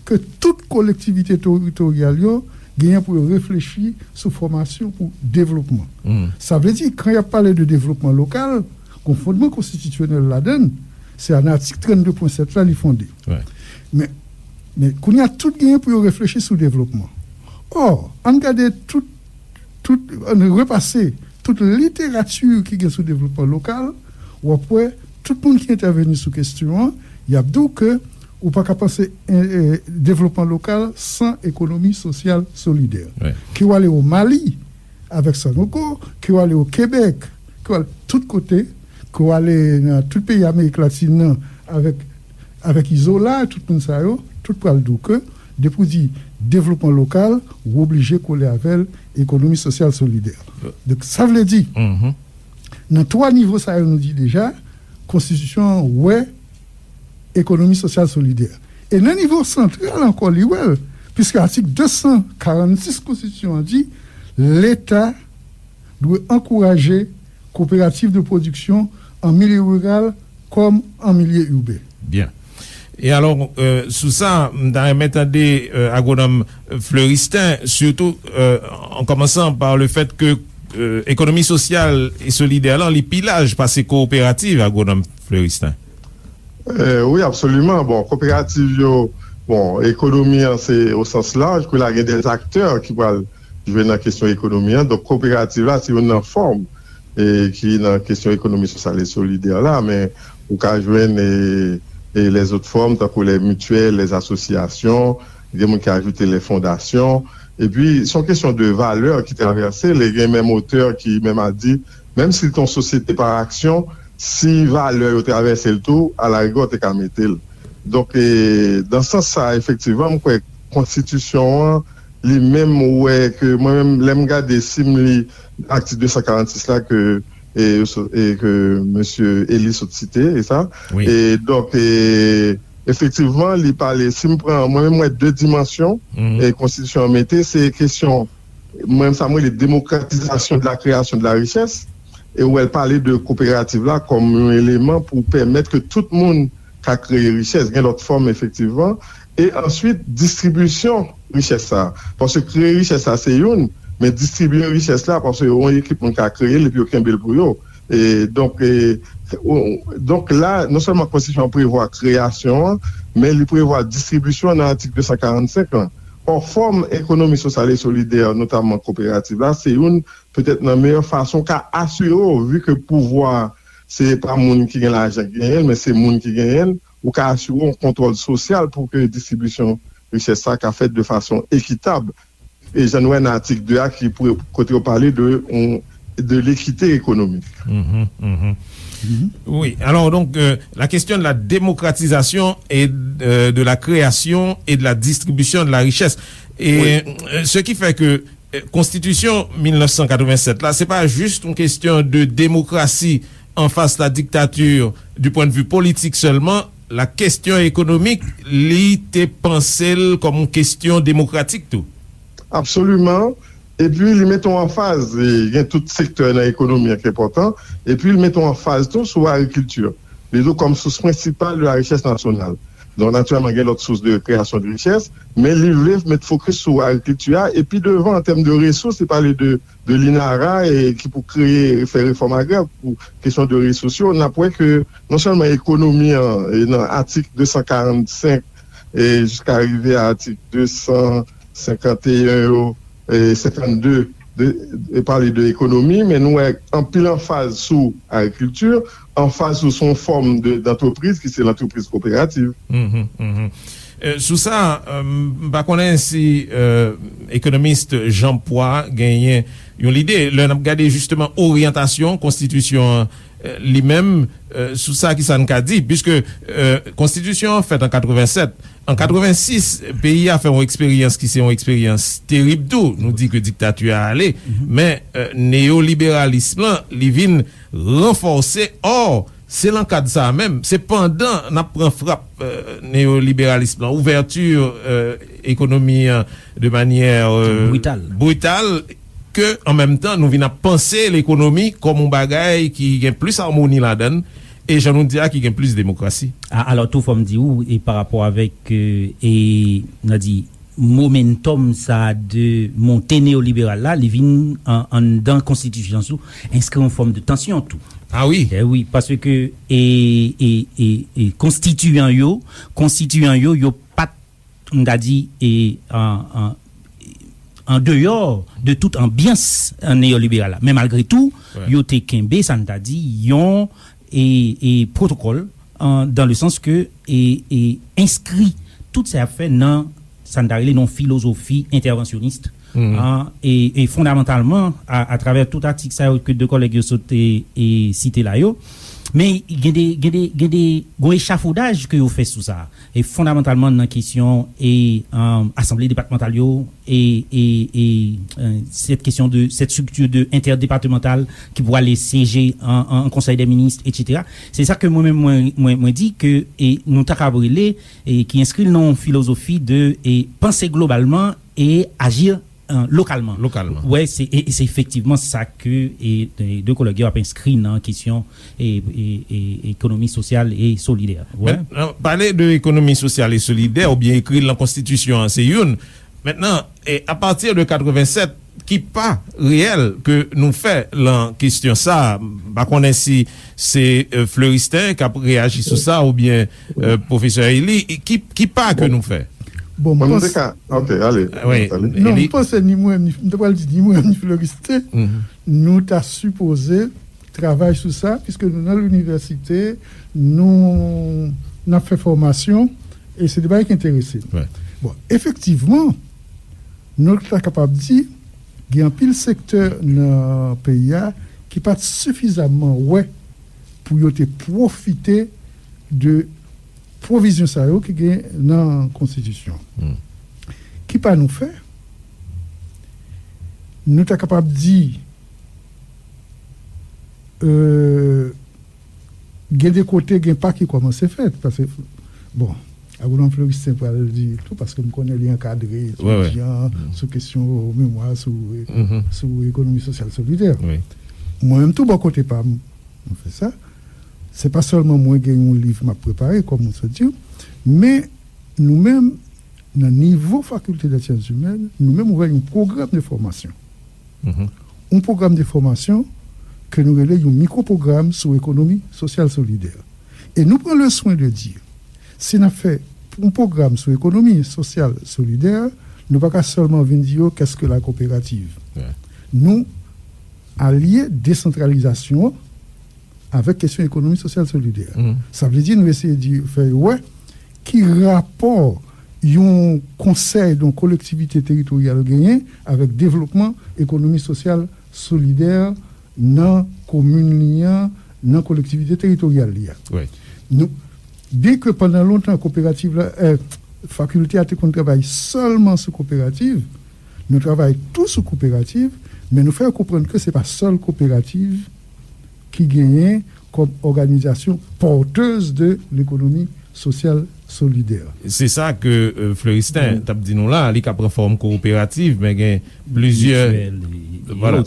ke tout kolektivite teritoryal yo genyen pou yo reflechi sou fòmasyon pou devlopman. Hmm. Sa vle di, kan y ap pale de devlopman lokal, gon fondman konstitisyonèl ladan l, se nan atik trannde pwen sèt la li fonde. Wi. Men, men kounye a, tout genyen pou yo reflechi sou devlopman. Ò, ann gade tout, tout, ann repase tout literati ki gen sou devlopman lokal, w ap wè tout moun ki entèveni sou kesyon an, y ap di w ke Ou pa ka panse eh, eh, devlopman lokal san ekonomi sosyal solidè. Ke w ale o Mali avèk Sanogo, ke w ale o Kebèk, ke w ale tout kote, ke w ale nan tout peyi Amerik Latin nan avèk, avèk Izola, tout moun sa yo, tout pral di w ke depi w di devlopman lokal, ou oblije kole avè l ekonomi sosyal solidè. Donk, sa vle di, nan twa nivo sa yo nou di deja, konstitisyon an wè ekonomi sosyal solidè. E nan nivo santral ankò, li wè l, piske atik de san karannsis konstitisyon an di, Leta dwe ankouraje koperativ de pwodiksyon an milye riral kòm an milye iben. Byen. E alò, euh, sou sa, m ta renmen tande euh, agwonòm Fleuristin, sitou euh, an kòmansan pa le fèt ke euh, ekonomi sosyal e solidè lan, li pi laj pase kooperativ, agwonòm Fleuristin. Euh, wi, absoliman. Bon, koperativ yo, bon, ekonomi an se o sans laj, kou la gen de aktè ki pral jwe nan kesyon ekonomi an. Donk, koperativ la se youn nan fòm e ki nan kesyon ekonomi sosyal e solidè la, men ou ka jwenn e, e lèzòt fòm, tankou lè mityèl, lè asosyasyon, gen moun ki ajoute lè fondasyon. Epi, se yon kesyon de valè ki travèse l, e gen menm otè ki menm a di, menm si l te yon sosyete pa aksyon, si valè yo travèse l tou, alarigè w te ka mete l. Donk, e, nan sans sa, efektivman, m kwè konstitisyon an, li menm, ou wè ke mwen menm, lè m gade, si m li atik de san karannsis la ke, e, e ke mesye Eli sot site, e sa. E donk, e, efektivman, li pale, si m pran, mwen menm, m wè de dimansyon e konstitisyon an mete, se kesyon mwen, sa m rele demokratizasyon de la kreyasyon de la richès, e ou wè l pale de koperativ la kòm yon eleman pou pèmèt ke tout moun ka kreye richès, gen lòt fòm efektivman, e answit distribisyon richès sa a. Paske kreye richès la se youn, men distribiye richès la, paske yon ekip moun ka kreye l epi yo kenbe l pou yo. E donk, e, donk la, non sèlman konstitisyon an prevwa kreyasyon an, men li prevwa distribisyon an nan atik de san karannsenk lan. Ò, fòm ekonomi sosyal e solidè, notamman koperativ la, se youn petèt nan meyè fason w ka asire w, vi ke pouvwa se pa moun ki gen lajan ki genyen l, men se moun ki genyen l, ou ka asire w yon kontwòl sosyal pou ke distribisyon richès sa ka fèt de fason ekitab. E jan nou wè nan atik de a ki kote yo pale de yon de lekite ekonomik. Wi, alò donk, euh, la question de la démocratisation et euh, de la création et de la distribution de la richesse. Et euh, ce qui fait que euh, konstitisyon mil nèf san katrevennsèt la, se pa jis yon kesyon de demokrasi an fas la diktature du point de vue politique seulement, la kesyon ekonomik, li te panse l kòm yon kesyon demokratik tou. Absoliman. Epi li mete w anfaz, gen tout sektè nan ekonomi an ki enpòtan, epi li mete w anfaz tou sou agrikilti. Li di w kòm sous prensipal de la richès nasyonal. Donk, natirèlman, gen lòt sous de kreyasyon de richès, men li vle met fokis sou agrikilti a, epi devan, an tèm de resous, li pale de, de l'INARA, e ki pou kreye, fè refòm agrè pou kesyon de resous yo. N ap wè ke non sèlman ekonomi an, e nan atik de san karannsenk, e jiska rive a atik de san senkanteyen yo, e senkannde, de, e pale de ekonomi, men nou wè anpil anfaz sou agrikilti, anfaz sou, sou yon fòm de, d'antrepriz ki se lantrepriz koperativ. Sou sa, m pa konnen si ekonomis Jean Poix genyen yon lide. Lè n ap gade jisteman oryantasyon konstitisyon an li menm, sou sa, kisa n ka di? Piske konstitisyon an fèt an katrevennsèt, an katrevensis, peyi a fè yon eksperyans ki se yon eksperyans terib tou. Nou di ke diktati a ale, men neyoliberalis lan, li vin ranfòse. Ò, se nan kad sa a menm, se pandan n ap pran frap neyoliberalis lan, ouvèti ekonomi an de manyè brital, ke an menm tan nou vin ap panse lekonomi kòm yon bagay ki gen plis amoni ladan l, e jan nou di a, ki gen plis demokrasi. Alò tou, fò m di w, e pa rapò avèk, e n a di, momentum sa a de monte neyoliberal la, li vin anndan konstitisyon an, enskri yon fòm de tansyon tou. A wi. E wi, paske e, e, e, e konstitiyan yo, konstitiyan yo, yo pa t, m ta di, e an, an, an deyò de tout anbyans neyoliberal la. Men malgre tou, yo te kenbe, sa n ta di, yon e, e pwotokòl an, dans le sens que e, e enskri tout sa y ap fè nan sa n ta rele nan yon filozofi entèvansyonis, an, e, e fondamantalman, a, atravè tout atik sa yo ke de kòlèg yo sot e, e site la yo, men gen de, gen de, gen de, gen yon echafodaj ke yo fè sou sa, e fondamantalman nan kesyon e, an, asanble depatmantal yo, e, e, e, e, cette question de cette structure de interdepartementale ki pou ale syeje an, an, an konsèy dè minis, etsetera. Se sa ke mwen menm mwen, mwen, mwen di ke e nou ta kab rele e ki enskri l nan yon filozofi de e panse globalman e aji, e, lokalman. Lokalman. Wè, se, e, e se efektivman sa ke e, e de kòlèg yo ap enskri nan kesyon e, e, e ekonomi sosyal e solidè. Wè. Men, nan pale de ekonomi sosyal e solidè oubyen ekri l nan konstitisyon an, se youn. Mentnan, e, apati de katrevennsèt, ki pa reyèl ke nou fè lan kesyon sa a? M pa konnen si se, e, Fleuristin k ap reyaji sou sa oubyen, e, pwofesè Élie. E ki, ki pa ke nou fè? Bon, m Mwen, m panse te ka, ok, ale. Wi, Ale. Non, Élie. M panse ni mwen, ni, m te pral di ni mwen, ni Fleuristin, nou ta sipoze travay sou sa, piske nou nan linivèsite, nou, n ap fè fòmasyon, e se de bagay ki enterese nou. Bon, efektivman, nou ta kapab di, gen anpil sektè nan peyi a ki pa t sifizamman wè pou yo te pwofite de pwovizyon sa yo ki gen nan konstitisyon. Ki pa nou fè? Nou ta kapab di, e, gen de kote, gen pa ki kòmanse fèt, paske, bon, Agwonòm Fleuristin pral di tou, paske m konnen li ankadre etidyan sou kesyon memwa sou, sou ekonomi sosyal solidè. Mwen menm tou bò kote pa m, mwen fè sa. Se pa sèlman mwen gen yon liv m ap prepare, kòm ou sot di, men nou menm, nan nivo Fakilte dè Syans Imèn, nou menm ouvè yon pwogram de fòmasyon. Yon pwogram de fòmasyon ke nou rele yon mikwo pwogram sou ekonomi sosyal solidè. E nou pran le swen de di, si n ap fè yon pwogram sou ekonomi sosyal solidè, nou pa ka sèlman vin di yo, qu'est-ce que la coopérative? Nou alye desantralizasyon an avèk kesyon ekonomi sosyal solidè. Sa vle di nou eseye di, fè yo wè ki rapò yon konsèy, yon kolektivite teritoryal genyen avèk devlopman ekonomi sosyal solidè nan komin li an, nan kolektivite teritoryal li a. Nou, byenke pandan lontan kooperativ la, e, fakilte a te konn travay sèlman sou kooperativ, nou travay tou sou kooperativ, men nou fè yo konprann ke se pa sèl kooperativ ki genyen kòm òganizasyon porteuse de l'économie sociale solidaire. Se sa ke, e, Fleuristin t ap di nou la, li ka pran fòm kooperativ, men gen plizyè, vwala,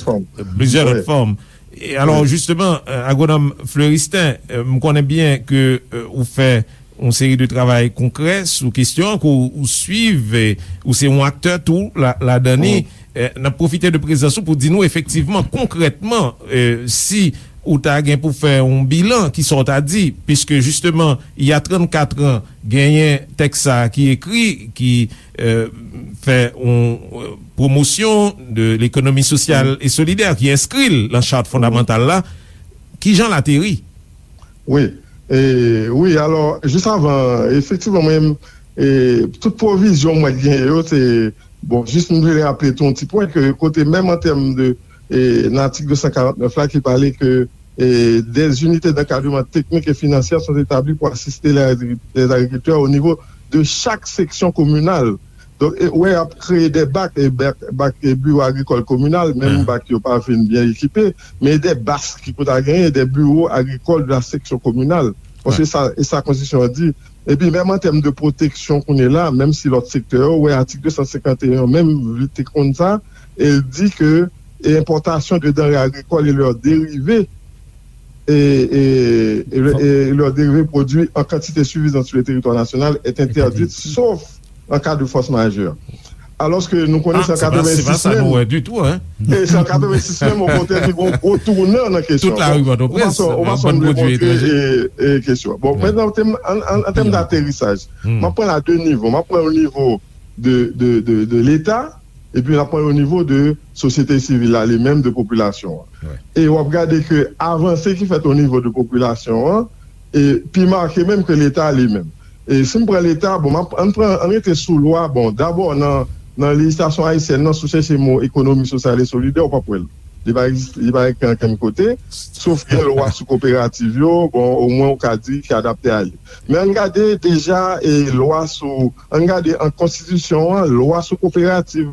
plizyè lòt fòm. E alò, jisteman, e, Agwonòm Fleuristin, e, m konnen byen ke, e, ou fè yon seri de travay konkrè sou kesyon an, ke w, ou swiv, e, ou se yon aktè tou la, ladan li. E, n ap pwofite de prezans ou pou di nou efektivman, konkrètman, e, si ou ta gen pou fè yon bilan, kisa w ta di, piske jisteman, il y a trannkat an, genyen tèks sa a ki ekri, ki, e, fè yon, e, pwomosyon de lekonomi sosyal e solidè, ki enskri l nan chat fondamantal la. Kijan l ateri? Wi, e, wi, alò, jis avan, efektivman, mwen, e, tout pwovizyon mwen genyen yo, se, bon, jis m vle raple tou yon ti pwen ke kote menm an tèm de, e, nan atik de san karant nèf la ki pale ke, e, des unités d'encadrement technique et financière sont établies pour assister les agri-, les agriculteurs au niveau de chaque section communale. Donk, e, wè, y ap kreye de bak, e, bak, bak, e, biwo agrikòl kominal, menm bak yo pa fin byen ekipe, men de bak ki pou ta genyen, de biwo agrikòl de la section communale. Bon, se sa, e sa konstitisyon an di. Epi, menm an tèm de pwoteksyon kounye la, menm si lòt sektè yo, wè, atik de san senkant e yon menm, li te konn sa, e l di ke, e, importation de denrées agricoles et leurs dérivés, et, et, et, et leurs dérivés produits en quantité suffisante sur le territoire national est interdite, sauf en cas de force majeure. Alòske nou konnen se an katrevensis menm. E se an katrevensis menm, okontrè, ki gen yon gwo tounan nan kesyon. Tout lari Pòtoprens, nan bann pwodui etranjè. E, e kesyon. Bon, mentnan, an, an, an tèm daterisaj, m ap pran l a de nivo. M ap pran l o nivo de, de, de, de Leta, epi m ap pran l o nivo de sosyete sivil la, li menm, de popilasyon an. E w ap gade ke avanse ki fèt o nivo de popilasyon an, e pi make menm ke Leta li menm. E si m pran Leta, bon, m ap, ann pran, ann rete sou lwa, bon, dabò nan, nan lejislasyon ayisyèn nan, si w chèche mo ekonomi sosyal e solidè, w p ap wè l. Li pa egzis-, li pa ekri ankenn kote, sof gen lwa sou koperativ yo, bon, omwen w ka di ki adapte a li. Men ann gade deja e lwa sou, ann gade an konstitisyon an, lwa sou koperativ,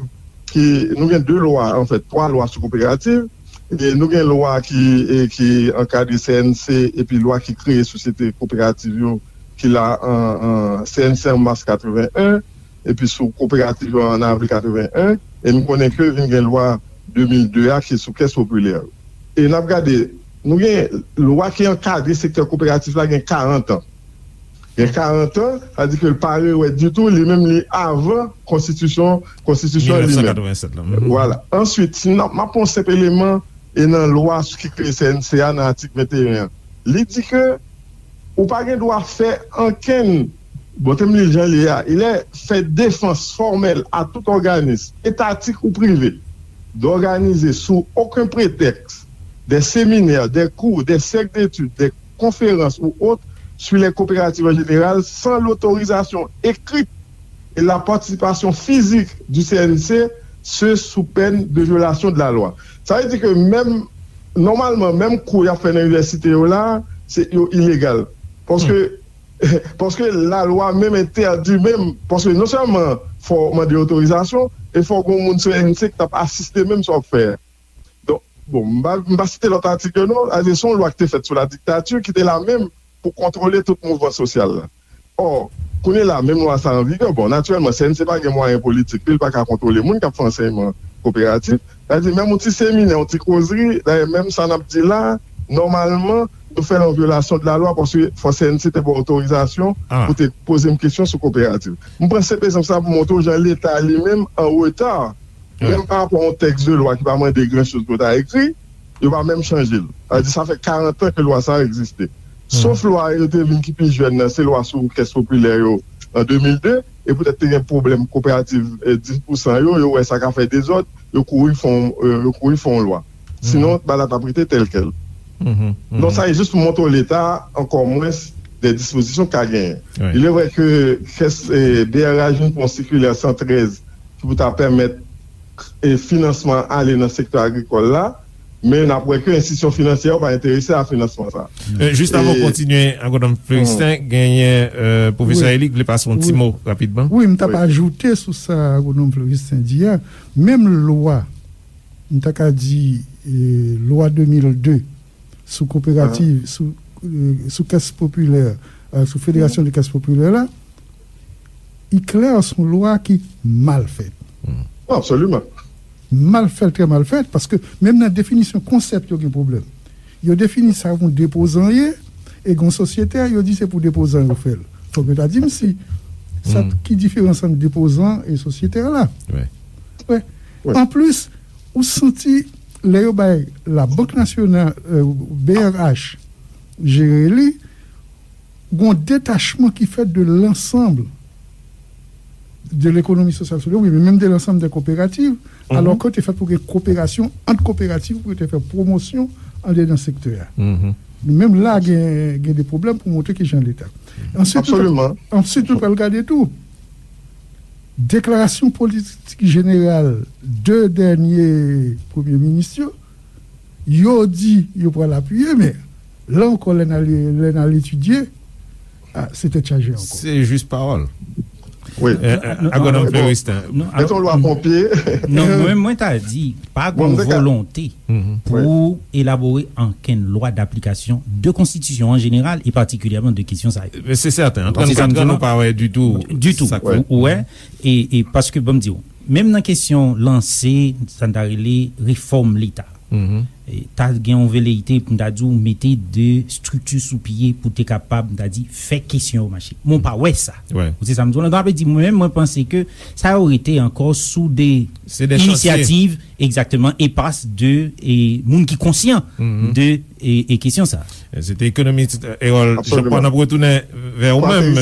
ki, nou gen de lwa, anfèt, twa lwa sou koperativ. E nou gen lwa ki, e, ki ankadre C N C, epi lwa ki kreye sosyete koperativ yo, ki la an, an C N C an mas katreven en, epi sou koperativ yo an avril katreven en, e nou konnen ke vin gen lwa de mil de a ki sou kès popilè yo. E n ap gade, nou gen lwa ki ankadre sektè koperatif la gen karant an. Gen karant an, sa di ke l pa rewè ditou, li menm li avan konstitisyon, konstitisyon li menm. Mil nèf san katreven sèt la. Mhm. Vwala. Answit, si n ap, m ap pran yon senp eleman, e nan lwa ki kreye C N C a nan atik venteyen an. Li di ke ou pa gen dwa fè ankenn, bon, te m li l jan li ye a, il est fait défense formelle à tout organisme, étatique ou privé, d'organiser sous aucun prétexte des séminaires, des cours, des cercles d'études, des conférences ou autres sur les coopératives en général sans l'autorisation écrite et la participation physique du C N C, ce sous peine de violation de la loi. Sa vle di ke menm, nòmalman, menm kou y ap fè nan inivèsite yo la, se, yo ilegal. Paske, paske lalwa menm entèdi menm, paske non sèlman fò w mande otorizasyon, e fò w gen yon moun C N C ki t ap asiste menm sa w ap fè a. Donk, bon, m pa, m pa site lòt atik yo non, se yon lwa ki te fèt sou la diktati, ki te la menm pou kontwole tout mouvman sosyal la. Ò, kounye la, menm lwa sa an vigè, bon, natirèlman, C N C pa gen mwayen politik li, li pa ka kontwole moun k ap fè ansèyman koperatif. Sa vle di, menm yon ti seminè, yon ti kozri, dayè, menm sa n ap di la, nòmalman, nou fè l an vyolasyon de la lwa, paske fò C N C te ba w otorizasyon pou te poze m kesyon sou koperativ. M pran senp egzanp sa pou montre w jan Leta li menm an reta, menm pa rapò a yon tèks de lwa ki pa mande gran choz pou ta ekri, yo pa menm chanje l. Sa vle di, sa fè karant an ke lwa sa a egziste. Sof lwa yo te vin ki pi jèn nan, se lwa sou kès popilè yo an de mil de, e poutèt te gen pwoblèm koperativ, eh, dis pousan yo, yo wè sa ka fè dezòd, yo kouri fè yon, eh, yo kouri fè yon lwa. Sinon, bagay la t ap rete tèlkèl. Donk, sa e jis pou montre w Leta, ankò mwens, de dispozisyon k ka genyen. Il est vrai ke kès, eh, B R H vin pran yon sikilè san trèz ki pou ta pèmèt, eh, finansman ale nan sektè agrikòl la, men n ap wè ke enstitisyon finansyè yo pa enterese a finansman sa. Eh, jis avan w kontinye, Agwonòm Floristin, genyen, eh, pwofesè Eli ki vle pase yon ti mo rapidman. Wi, m t ap ajoute sou sa Agwonòm Floristin di a, menm lwa, m ta ka di, eh, lwa de mil de, sou koperativ, sou, eh, sou kès popilè, eh, sou federasyon de kès popilè la, li klè, se yon lwa ki mal fèt. Absoliman. Mal fèt, trè mal fèt, paske menm nan definisyon konsèp yo gen pwoblèm. Yo defini sa pou depozan ye, e gen sosyetè, yo di se pou depozan yo fè l. Fòk yo ta di m si sa ki diferans ant depozan e sosyetè la. Wi. Anplis, ou santi lè yo bay Labank Nasyonal, eh, B R H, jere li, gon detachman ki fèt de lansanm de lekonomi sosyal solidè, wi, men menm de lansanm de koperativ, alò ke te fèt pou gen koperasyon ant koperativ pou te fè pwomosyon andedan sektè a. Men menm la, gen, gen de pwoblèm pou montre ki jan Leta. Answit, nou pral gade tou. Deklarasyon politik jeneral de dènye premye minis yo, yo di yo pral apiye, men la ankò, lè n al, lè n al etidye, ah, se tèt chaje ankò. Se jis pawòl. Wi. Eh, eh, Agwonòm Floristin. Non, se yon lwa ponpye. Non, mwen, mwen ta di, pa gen volonte pou elabore ankenn lwa daplikasyon de konstitisyon an jeneral e patikilyèman de kesyon sa yo. Se sèten, an trannkat an, nou pa wè ditou. Ditou. Ou wè, e, e paske, ban m di w, menm nan kesyon lanse, sa n ta rele refòm Leta. E ta gen yon veleyite pou n ta di w mete de estrikti sou pye pou te kapab, n ta di, fè kesyon yo mache. Men w pa wè sa. Ou se sa m di w lan. Donk, sa vle di, mwen menm, mwen panse ke sa yo rete ankò sou de inisyativ, egzakteman, epas de, e, moun ki konsyan de, e, e kesyon sa. Se te ekonomis, e, Erol Jean Paul. N ap retounen vè ou menm,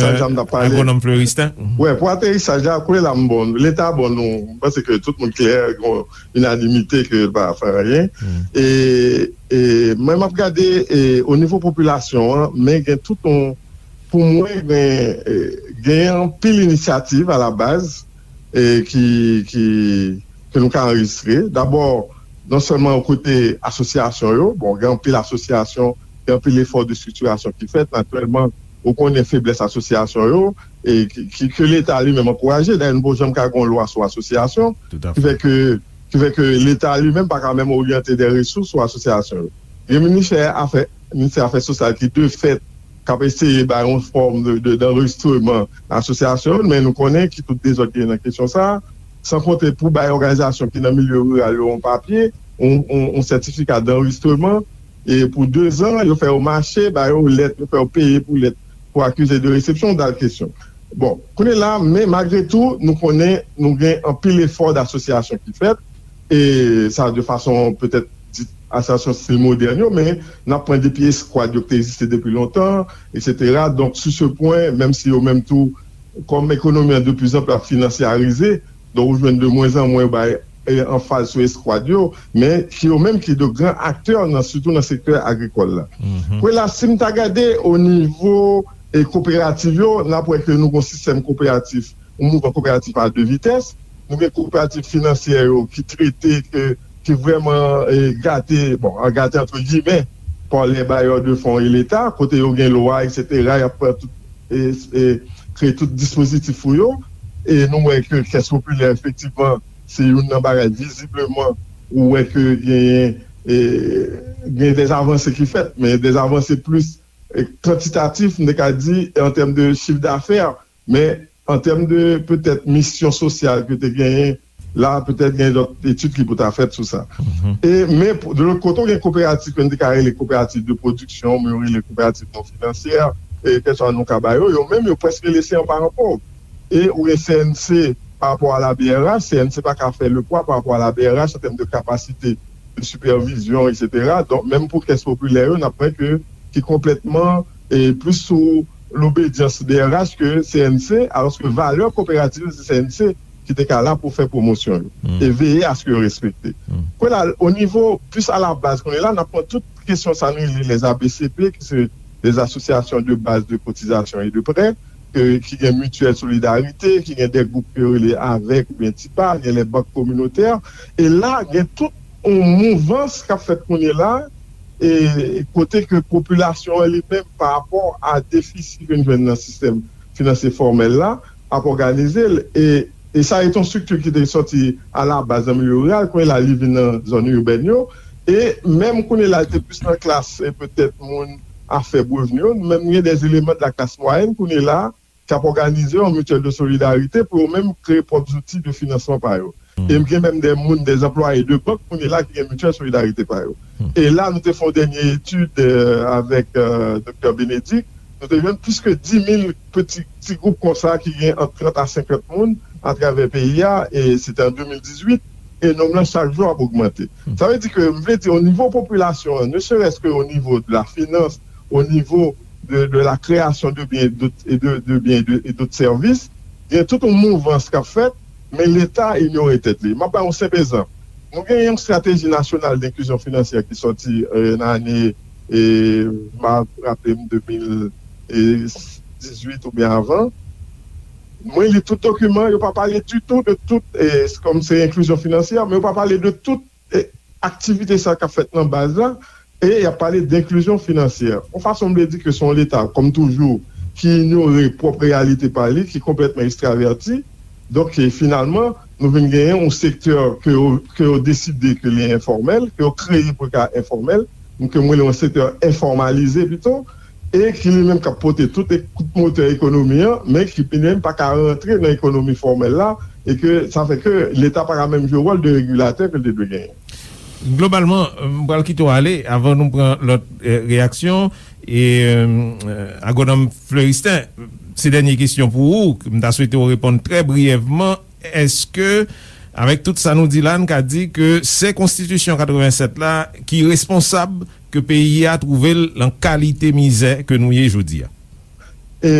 Agwonòm Floristin. Wi, pou aterisaj la, kounye la, m bon, Leta bon, nou, m panse ke tout moun klè, gon inanimite ke l pa fè anyen. E E, e, mwen, m ap gade, e, o nivo popilasyon an, men gen tout yon, pou mwen, gen, e, gen anpil inisyativ a la baz, e, ki, ki, ke nou ka anrejistre. Dabò, non sèlman o kote asosyasyon yo, bon, gen anpil asosyasyon, gen anpil efò de estriktirasyon ki fèt, natirèlman, ou konnen feblès asosyasyon yo, e ki, ki, ke Leta li menm ankouraje. Dayè, nou poko janm ka gen yon lwa sou asosyasyon, ki fè ke, ki fè ke Leta li menm pa ka menm oryante de resous sou asosyasyon yo. Gen ministè afè, ministè afè sosyal ki de fèt k ap eseye bay yon fòm de, de, d'anrejistreman asosyasyon yo, men nou konnen ki tout dezòd ki gen nan kesyon sa a, san konte pou bay òganizasyon ki nan milye riral yo yon papye, yon, yon, yon sètifika d'anrejistreman, e pou de zan, yo fè yo mache, ba yo lèt, yo fè yo peye pou lèt, pou akize de resepsyon, dal kesyon. Bon, kounye la, men malgre tou, nou konnen nou gen anpil efò d'asosyasyon ki fèt, e sa de fason petèt dit asosyasyon stil modèn yo, men n ap pran depi eskwad yo ki te egziste depi lontan, etsetera. Donk, sou se pwen, menm si yo menm tou, kòm ekonomi an de plus en plus ap finansyarize, donk ou jwenn de mwen an mwen yo bay, e, anfaz sou eskwad yo, men ki yo menm ki de gran aktè nan, sitou nan sektè agrikòl la. Kwela, si m ta gade o nivo, e, koperativ yo, n ap wè ke nou gen yon sistèm koperatif, yon mouvman koperatif a de vitès. Nou gen koperativ finansyè yo ki trete, ke, ki vrèman, e, gate, bon, an gate antre gimè, pa les bailleurs de fonds et Leta, kote yo gen lwa, etsetera, y ap pran tout, e, e, kreye tout dispozitif pou yo. E nou wè ke kès popilè, efektivman, se youn nan bagay vizibleman ou wè ke genyen, e, gen dè avanse ki fèt, men dè avanse plis, e, kantitatif, m te ka di, an tèm de chif dafè, men an tèm de petèt misyon sosyal ke te genyen, la, petèt gen lòt etid ki pou ta fèt sou sa. E, men, pou- de lòt kote, ou gen koperativ ke n te ka rele koperativ de pwodiksyon, men yo rele koperativ non finansyè, e, kèlkeswa non ka ba yo, yo menm, yo prèske lese an paran pòv. E ou gen C N C, pa rapò a la B R H, C N C pa ka fè le pwa pa rapò a la B R H an tèm de kapasite de sipèvizyon, etsetera. Donk, menm pou kès popilè yo, n ap wè ke ki konplètman, e, plis sou lobedyans B R H ke C N C, alòske valè koperativ se C N C ki te ka la pou fè pwomosyon yo e veye aske yo respekte. Kwela, o nivo plis a la baz, kounye la, n ap pran tout kesyon sa nou rele les A B C P, ki se les associations de base de cotisation et de prêt, ke, ki gen Mutuelle Solidarité, ki gen de gwoup ke yo rele avèk oubyen tipa, gen les banques communautaires. E la, gen tout yon mouvans k ap fèt kounye la, e kote ke popilasyon an li menm, pa rapò a defisi ke n jwenn nan sistèm finansye fòmèl la, ap òganize l. E, e sa e t yon estrikti ki te sòti a la baz nan milye riral, kounye la li vin nan zòn ibèn yo. E menm kounye la, li te plis nan klas, e petèt moun a fèb revni yo, nou menm gen des éléments de la classe moyenne kounye la, k ap òganize yon mutuelle de solidarité pou yo menm kreye pwòp zouti de finansman pa yo. E m gen menm de moun, de anplwaye de bank kounye la ki gen mutuelle solidarité pa yo. E la, nou te fè yon dènye etid, e, avèk, e, doktè Bénédicte, nou te jwenn plis ke dis mil peti, ti gwoup konsa ki gen ant trant a senkant moun atravè peyi a, e se te an de mil dizuit, e nonb lan chak jou ap ogmante. Sa vle di ke, m vle di, o nivo popilasyon an, ne serait-ce que au niveau de la finance, au niveau de, de la création de biens et d'autres, et de, de biens et de, et d'autres services, gen tout yon mouvans k ap fèt, men Leta inyore tèt li. M ap bay yon senp egzanp. Nou gen yon strateji nasyonal de enklizyon finansyè ki sòti, e, nan ane, e, m ap raple m, de mil dizuit oubyen avan. Mwen li tout dokiman, yo pa pale ditou de tout, e, kòm se enklizyon finansyè, men yo pa pale de tout, e, aktivite sa k ap fèt nan baz la, e y ap pale de enklizyon finansyè. Yon fason m vle di ke se yon Leta, kòm toujou, ki inyore pwòp reyalite pa li, ki konplètman ekstravèti. Donk, e, finalman, nou vin genyen yon sektè ke yo, ke yo deside ke li enfòmèl, ke yo kreye pou l ka enfòmèl, ke mwen rele yon sektè enfòmalize pito, e ki li menm k ap pote tout e-, kout motè ekonomi an, men ki li menm pa ka rantre nan ekonomi fòmèl la, e ke sa fè ke Leta pa ka menm jwe wòl de regilatè ke l te dwe genyen. Globalman, m pral kite w ale avan nou pran lòt, e, reyaksyon. E, e, Agwonòm Fleuristin, se dènye kesyon pou ou. M ta swete w reponn trè briyèvman. Èske, avèk tout sa nou di la, n ka di ke se konstitisyon katrevennsèt la ki responsab ke peyi a twouve l nan kalite mizè ke nou ye jodi a? E,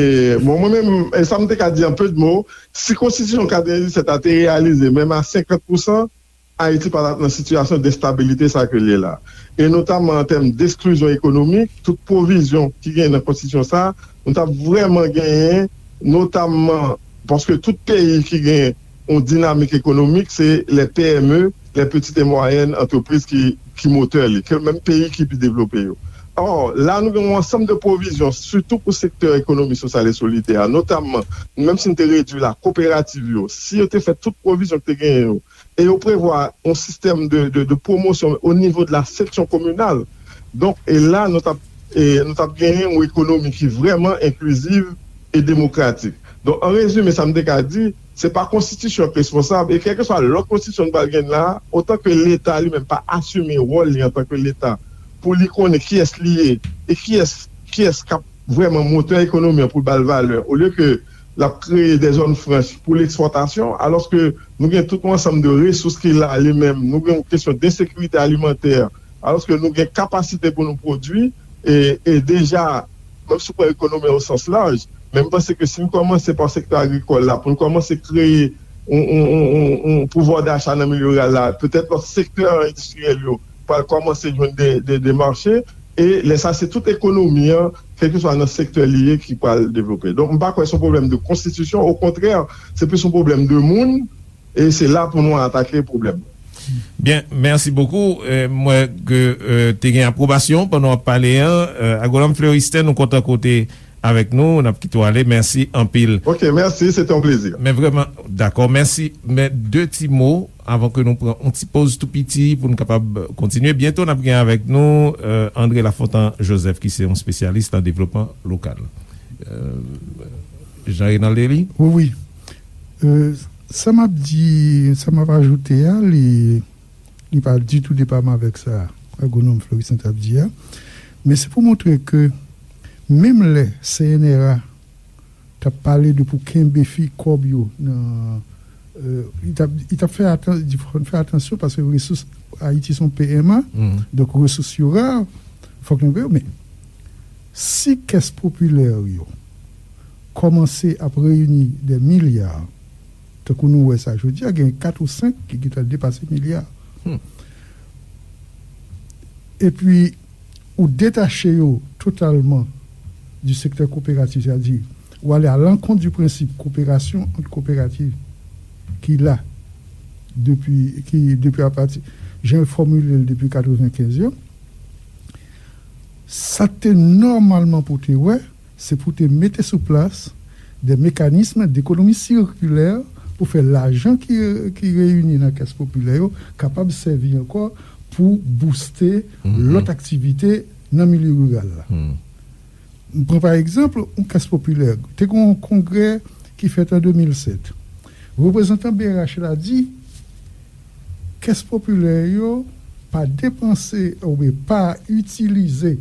bon, mwen menm, e sa m te ka di an pe de mo, si konstitisyon katrevennsèt la te reyalize, menm a senkant pousan, Ayiti pa t ap nan sitiyasyon de enstabilite sa ke l ye la. E notamman an tèm de eksklizyon ekonomik, tout pwovizyon ki genyen nan konstitisyon sa, nou t ap vrèman genyen, notamman paske tout peyi ki gen yon dinamik ekonomik, se les P M E, les petites et moyennes entreprises ki, ki motè li, ke menm peyi ki pi devlope yo. Or, la nou gen yon ansanm de pwovizyon, sitou pou sektè ekonomi sosyal e solidè a, notamman, menm si n te redui la, koperativ yo, si yo te fè tout pwovizyon ki te genyen yo, e yo prevwa yon sistèm de, de, de pwomosyon o nivo de la seksyon kominal. Donk, e la, nou t ap, e, nou t ap genyen yon ekonomi ki vrèman enkliziv e demokratik. Donk, an rezime, sa m te ka di, se pa konstitisyon k responsab, e kèlkeswa lòt konstitisyon nou pral gen la, otan ke Leta li menm pa asime wòl li antanke Leta, pou li konnen kiyès li ye, e kiyès, kiyès k ap vrèman motè ekonomi an pou l ba l valè, olye ke l ap kreye de zòn franch pou lekspòtasyon, alòske nou gen tout yon ansanm de resous ki la li menm, nou gen yon kesyon de ensekirite alimantè, alòske nou gen kapasite pou nou pwodui, e, e deja, menm si w pran ekonomi o sans laj, men m panse ke si n kòmanse pa sektè agrikòl la, pou n kòmanse kreye yon, yon, yon, yon, yon pouvwa dacha nan milye riral la, petèt lòt sektè endistriyèl yo pral kòmanse jwenn de, de, de mache, e lè sa, se tout ekonomi an, kèlkeswa nan sektè li ye, ki pral devlope. Donk, m pa kwè se yon pwoblèm de konstitisyon, okontrè, se plis yon pwoblèm de moun, e se la pou nou atake pwoblèm. Byen, mèsi bokou. Euh, m wè ke, euh, te gen apwobasyon pandan w ap pale an. Euh, Agwonòm Fleuristin, nou kontan ke w te avèk nou. N ap kite w ale. Mèsi anpil. Ok, mèsi. Se te yon plezi. Men vrèman, dakò. Mèsi. Men de ti mo avan ke nou pran yon ti poz tou piti pou nou kapab kontinye. Byento, n ap gen avèk nou, euh, André Lafontant Joseph, ki se yon espesyalis nan devlopman lokal. Euh, Jean Renald Elie? Wi, wi. Euh, sa m ap di, sa m ap ajoute a, li, li pa ditou depaman avèk sa agwonòm Fleuristin t ap di a. Men se pou montre ke menm lè C N R A t ap pale de pou kenbe fi kòb yo nan, euh, li t ap, li t ap fè atan-, di fò n fè atansyon paske resous Ayiti se yon P M A, donk resous yo ra, fòk nou veye yo. Men si kès popilè yo kòmanse ap reyini de milya, tankou nou wè sa jodi a, gen kat ou senk ki gentan depase milya. Epi, ou detache yo totalman di sektè koperatif, sètadi, ou ale a lankont di prensip koperasyon ant koperativ ki la depi, ki depi apati, jan yo fòmile l depi katrevenkenz yo, sa te nòmalman pou te wè, se pou te mete sou plas de mekanism dekonomi sikilè pou fè lajan ki, ki reyini nan kès popilè yo kapab sèvi ankò pou bouste lòt aktivite nan milye riral la. M pran pa egzanp yon kès popilè. Te gen yon kongrè ki fèt an de mil sèt. Reprezantan B R H la di, kès popilè yo pa depanse oubyen pa itilize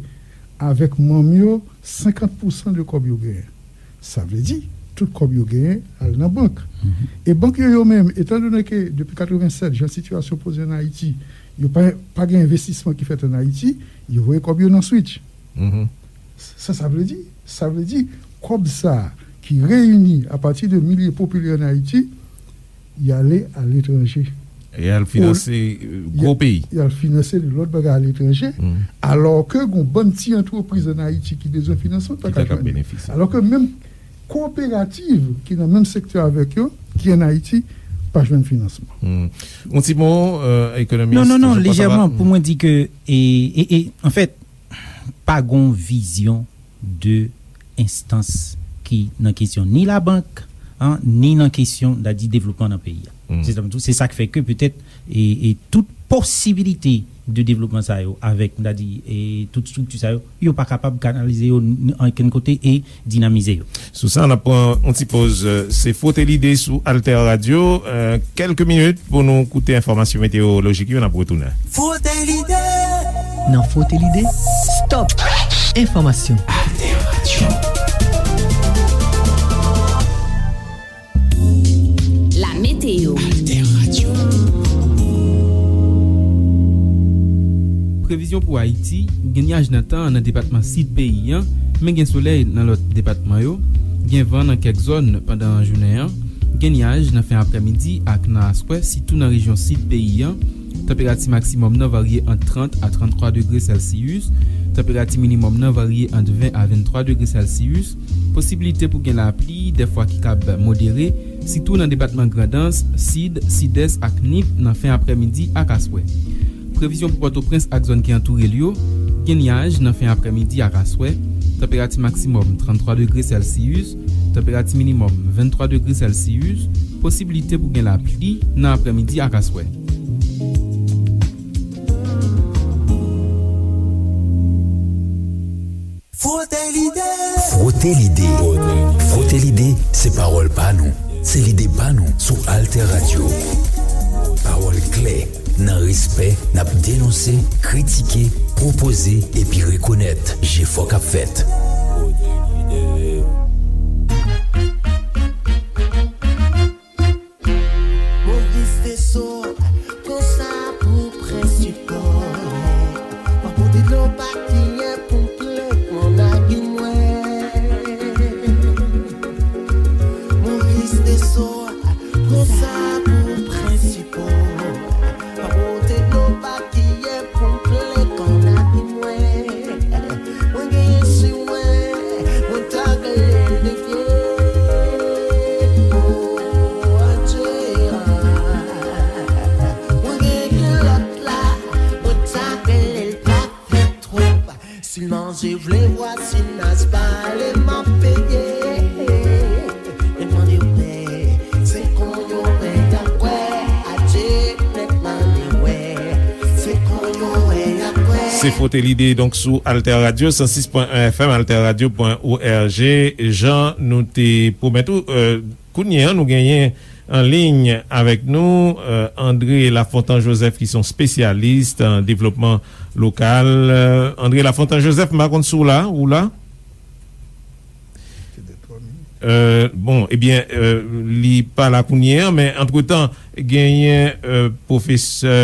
avèk manm yo senkant pousan de kòb yo genyen. Sa vle di, tout kòb yo genyen al nan bank. E bank yo, yo menm, etandone ke depi katrevennsèt, jan sitiyasyon poze an Ayiti, yo pa, pa gen envestisman ki fèt an Ayiti, yo voye kòb yo nan Switch. Sa, sa vle di, sa vle di, kòb sa a ki reyini apati de milye popilè an Ayiti, y ale aletranje. E al finanse, euh, gwo peyi. Y al finanse lòt bagay aletranje, alò ke gon bann ti antrepriz an Ayiti ki bezwen finansman pa ka jwenn. Alò ke menm koperativ ki nan menm sektè avèk yo, ki an Ayiti, pa jwenn finansman. Yon ti mo, euh, ekonomis. Non, non, non, lejèman, pou mwen di ke, e, e, e, anfèt, pa gon vizyon de enstans ki nan kesyon ni labank, an, ni nan kesyon, n a di, devlopman nan peyi a. Se sa, se sa k fè ke petèt, e, e tout posibilite de devlopman sa yo, avèk, n a di, e tout estrikti sa yo, yo pa kapab kanalize yo n-, ankenn kote e dinamize yo. Sou sa, n ap pran yon ti poz. Se Frote Lide sou Alter Radio. Euh, kèlke minit pou nou koute enfòmasyon meteyolojik yo, n ap retounen. Frote Lide! Nan Frote Lide, stop! Enfòmasyon. Alter Radio. La météo. Alter Radio. Previzyon pou Ayiti, gen nyaj nan tan an nan depatman sid peyi an, men gen solèy nan lòt depatman yo, gen van nan kèk zòn pandan jounen an, Gen nyaj nan fen aprèmidi ak nan aswè, sitou nan rejyon sid peyi a. Tanperati maksimòm nan varye ant trant a tranntwa degre Sèlsiyis. Tanperati minimòm nan varye ant ven a venntwa degre Sèlsiyis. Posibilite pou gen lapli, dèfwa ki kab modere, sitou nan depatman Grandans, Sid, Sidès ak Nip nan fen aprèmidi ak aswè. Previzyon pou Pòtoprens ak zòn ki antoure l yo: gen nyaj nan fen aprèmidi ak aswè, tanperati maksimòm tranntwa degre Sèlsiyis, tanperati minimòm venntwa degre Sèlsiyis, posiblite pou gen lapli nan aprèmidi ak aswè. Frote lide. Frote lide. Frote lide, se pawòl pa nou. Se lide pa nou sou Alter Radio. Pawòl klè, nan respè, n ap denonse, kritike, pwopoze, epi rekonèt jefò k ap fèt. Moris de so, pran sa pou prensipal. Pa pote dlo pa kiyen pou m plen kò nan ki nwè. Moris de so, pran sa pou prensipal. Pa pote dlo pa kiyen pou m plen kò nan ki nwè. Mwen genyen sou mwen, mwen ta genyen de vye. O, adje, a. Mwen genyen kilòt la, mwen ta genyen l pa fè twòp. Si l manje vle vwazinaj pale m ap peye. Mwen mande w pè, se konn yo pè y ap kwè. Adje, nèg mande w pè, se konn yo pè y ap kwè. Se Frote Lide, donk, sou Alter Radio, san sis pwen en F M, alterradio pwen org. Jan nou te pwomèt ou, euh, kounye a, nou genyen an liy avèk nou, euh, André Lafontant Joseph, ki se yon espesyalis nan devlopman lokal. Euh, André Lafontant Joseph, m pa konn si w la, ou la? Euh, bon, ebyen, euh, li pa la kounye a, men antretan, genyen, euh, pwofesè,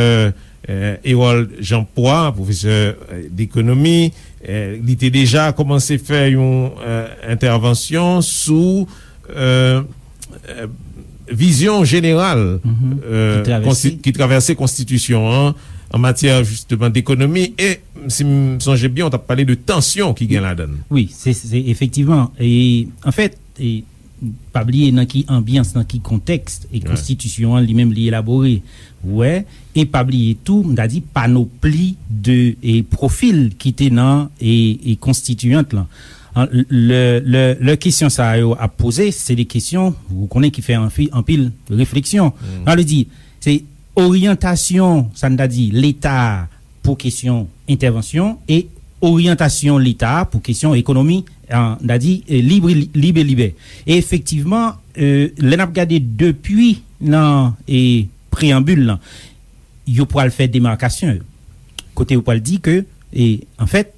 euh, Hérold Jean Poix, pwofesè, euh, dekonomi, euh, li te deja kòmanse fè yon, euh, entèvansyon sou, euh, euh, vizyon jeneral, euh, ki travèse konsti-, ki travèse konstitisyon an, an matyè, jisteman, dekonomi, e si m sonje byen, w t ap pale de tansyon ki gen ladan l. Wi, se, se efektivman. E, anfèt, e, pa bliye nan ki anbyans, nan ki kontèks, e konstitisyon an li menm li elabore. Wè, e pa bliye tou, m ta di, panopli de, e, pwofil ki te nan, e, e konstitiyant lan. An, lè, lè, lè kesyon sa yo ap poze, se de kesyon, ou konnen, ki fè anfi-, anpil refleksyon. Sa vle di, se oryantasyon, sa n ta di, Leta a pou kesyon entèvansyon e oryantasyon Leta a pou kesyon ekonomi, an, n ta di, e, lib, lib e libè. E efektivman, e, lè n ap gade depi nan, e, preyanbil lan, yo pral fè demakasyon yo. Kote yo pral di ke, e, anfèt,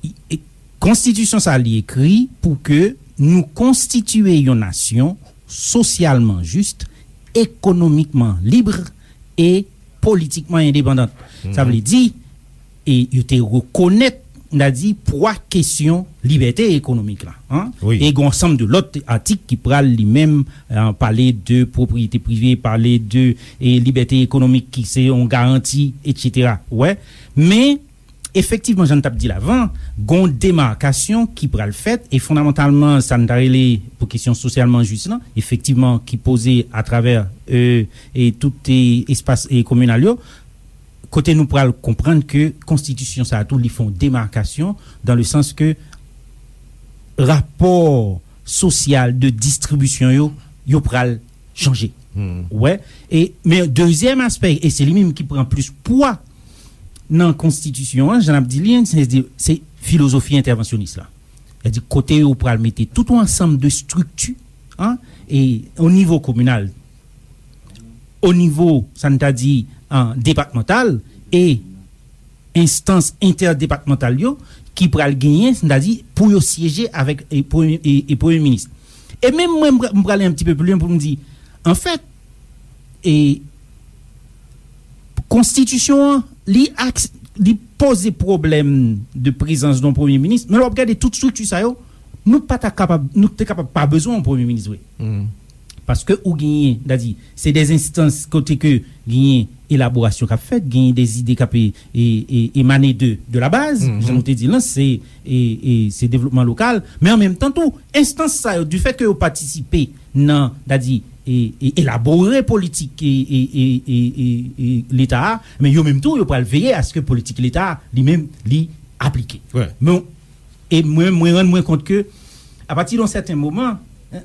i, e, konstitisyon sa li ekri pou ke nou konstitiye yon nasyon sosyalman jis, ekonomikman lib e politikman endepandan. Sa vle di, e yo te rekonèt, n a di, pwa kesyon libète ekonomik la, an. Wi. E gen yon ansanm de lòt atik ki pral li menm, an, pale de pwopriyete prive, pale de, e, libète ekonomik ki se yon garanti, etsetera. Wè. Men, efektivman, jan n t ap di l avan, gen yon demakasyon ki pral fèt, e fondamantalman, sa n ta rele pou kesyon sosyalman jis lan, efektivman, ki poze atravè, e, e tout, e, espas, e, kominal yo, kote nou pral konprann ke konstitisyon sa a tou, li fè yon demakasyon, dan le sans ke rapò sosyal de distribisyon yo, yo pral chanje. Wè. E, men dezyèm aspè, e se li menm ki pran plis pwa nan konstitisyon an, jan n ap di li, se, se filozofi entèvansyonis la. Sètadi kote yo pral mete tout yon ansanm de estrikti, an, e o nivo kominal, o nivo, sa n ta di, an, depatmantal, e enstans entèdepatmantal yo ki pral genyen, sa n ta di, pou yo syeje avèk, e, premye, e, e premye minis. E menm mwen, m pra-, m prale yon ti pe pli lwen pou m di, anfèt, e, konstitisyon an, li aks-, li poze pwoblèm de prezans yon premye minis, men lè w ap gade tout estrikti sa yo, nou pa ta kapab, nou te kapab pa bezwen yon premye minis vre. Paske ou genyen, dadi, se de enstans kote ke genyen elaborasyon k ap fèt, genyen de ide k ap e, e, e, emane de, de la baz, jan nou te di l lan, se, e, e, se devlopman lokal, men an menm tan tou, enstans sa yo, difèt ke yo patisipe nan, dadi, e, e, elabore politik e, e, e, e, e, e Leta a, men yo menm tou, yo pral veye aske politik Leta a, li menm, li aplike. Men, e mwen, mwen rann mwen kont ke, apati de yon sèten moman,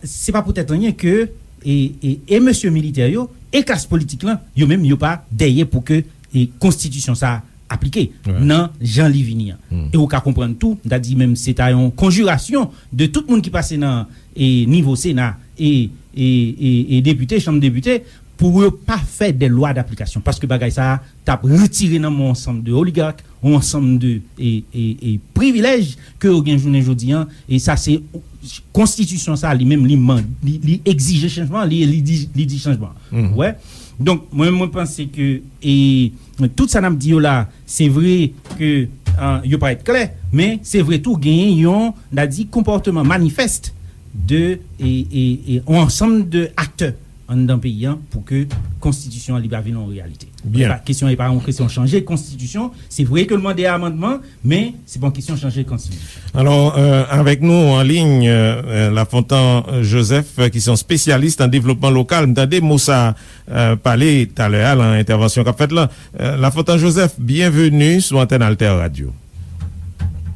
se pa poutèt anyen ke, e, e, e mesye militè yo, e klas politik lan, yo menm, yo pa dèyè pou ke, e, konstitisyon sa a aplike nan jan li vini an. E ou ka konprann tou, m ta di menm se ta yon konjirasyon de tout moun ki pase nan, e, nivo Sena e, e, e, e depite, chanm depite, pou yo pa fè de lwa daplikasyon. Paske bagay sa a t ap retire nan men yon ansanm de oligak, yon ansanm de, e, e, e privilèj ke yo gen jounen jodi an. E sa se konstitisyon sa a li menm, li, man- li, li egzije chanjman, li, li di, li di chanjman. Ou wè? Donk, mwen, mwen panse ke, e, tout sa n ap di yo la, se vre ke, e, yo parèt klè, men se vre tou genyen yon, n a di, konpòteman manifès de, e, e, e, yon ansanm de aktè anndan peyi an pou ke konstitisyon an li pa vin yon reyalite. Byen. E pa, kesyon e pa yon kesyon chanje konstitisyon. Se vre ke l mande amandman, men se pa yon kesyon chanje konstitisyon. Alò, euh, avèk nou an liy, euh, Lafontan Joseph, euh, ki se yon espesyalis nan devlopman lokal. M tande mo sa, euh, pale talè a nan entèvansyon k ap fèt la. Euh, Lafontan Joseph, byenveni sou antèn Alter Radio.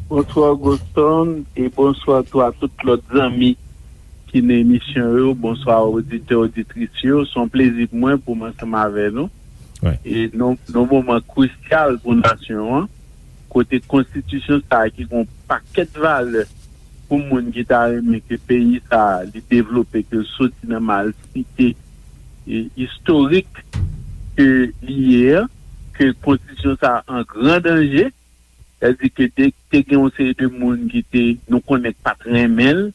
Bonswa, Goston, e bonswa tou a tout lòt zanmi ki nan emisyon yo. Bonswa, oditè, oditris yo. Se yon plezi pou mwen pou m ansanm avè nou. E nan, nan moman krisyal pou nasyon an, kote konstitisyon sa a ki gen yon pakèt valè pou moun ki ta renmen ke peyi sa a li devlope, ke l soti nan malsite, e, istorik ke li ye an, ke konstitisyon sa a an gran danje, sètadi ke te, te gen yon seri de moun ki te, nou konnen k pa t renmen l,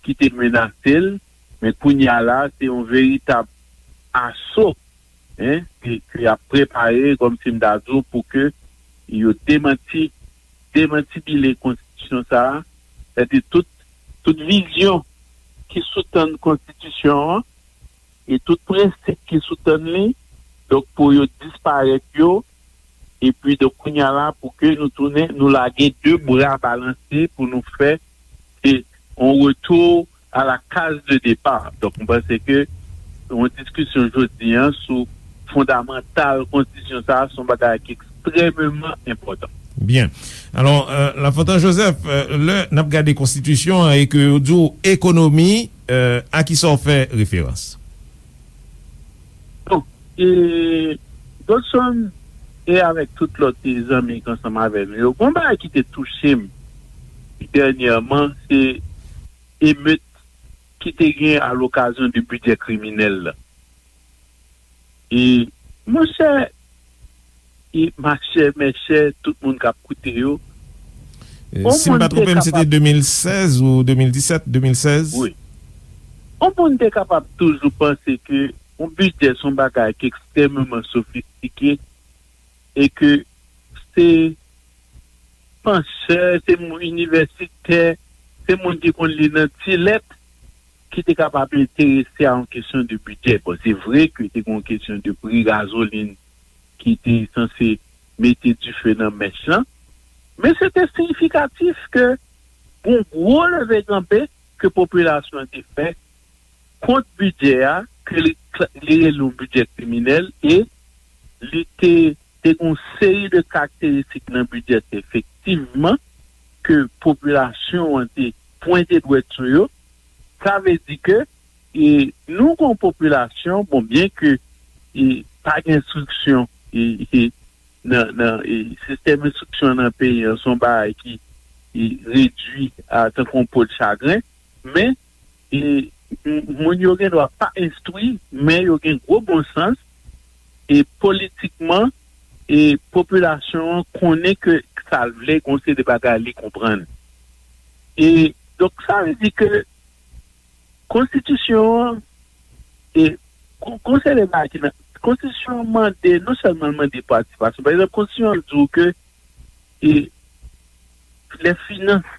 ki te menase l, men kounye a la, se yon veritab aso, en, ke, ke y ap prepare, kòmsi m ta di w, pou ke yo demanti, demantibile konstitisyon sa a, sètadi tout, tout vizyon ki soutann konstitisyon an, e tout prensip ki soutann li, donk pou yo disparèt yo, epi donk kounye a la pou ke nou tounen, nou lage de bra balanse pou nou fè, se yon retou a la kaz de depa. Donk, mwen panse ke yon diskisyon jodi an sou fondamantal konstitisyon sa a, se yon bagay ki ekstrèmeman enpòtan. Byen. Alò, euh, Lafontan Joseph, euh, lè n ap gade konstitisyon an e ke yo di w ekonomi, euh, a kisa w fè referans? Bon, e, Godson, e avèk tout lòt, e, zanmi k ansanm avè nou yo, gon bagay ki te touche m dènyèman, se emet ki te gen alokasyon de bidjè kriminèl la. E, monchè, e machè, mèchè, tout moun k ap koute yo. E, si m pa twonpe m, se te de mil sèz ou de mil disèt, de mil sèz? Wi. Yon moun te kapab toujou panse ke yon bidjè se yon bagay ki ekstrèmeman sofistike e ke se panchè, se moun inivèsitè, se moun ki konn li nan ti lèt ki te kapab enterese a yon kesyon de bidjè. Bon, se vre ke te gen yon kesyon de pri gazolin ki te sanse mete dife nan mèch lan, men se te siyifikatif ke gon gwo leve kanpe ke popilasyon an te fè kont bidjè a, ke li, li rele yon bidjè kriminèl, e li te, te gen yon seri de karakteristik nan bidjè efektivman ke popilasyon an te pwente dwèt sou yo. Sa vle di ke, e, nou gen yon popilasyon, bon, byen ke, e, pa gen enstriksyon, e, e, nan, nan, e, sistèm enstriksyon nan peyi an, se yon bagay ki, e, redui a tankou yon po de chagren, men, e, m-, moun yo gen dwa pa enstwi, men yo gen gwo bon sans, e politikman, e popilasyon an konnen ke sa l vle, gon seri de bagay li konprann. E, donk, sa vle di ke konstitisyon an, e, gon, gon seri de bagay ki nan, konstitisyon an mande, non sèlman l mande patisipasyon. Pa egzanp, konstitisyon an di w ke, e, les finances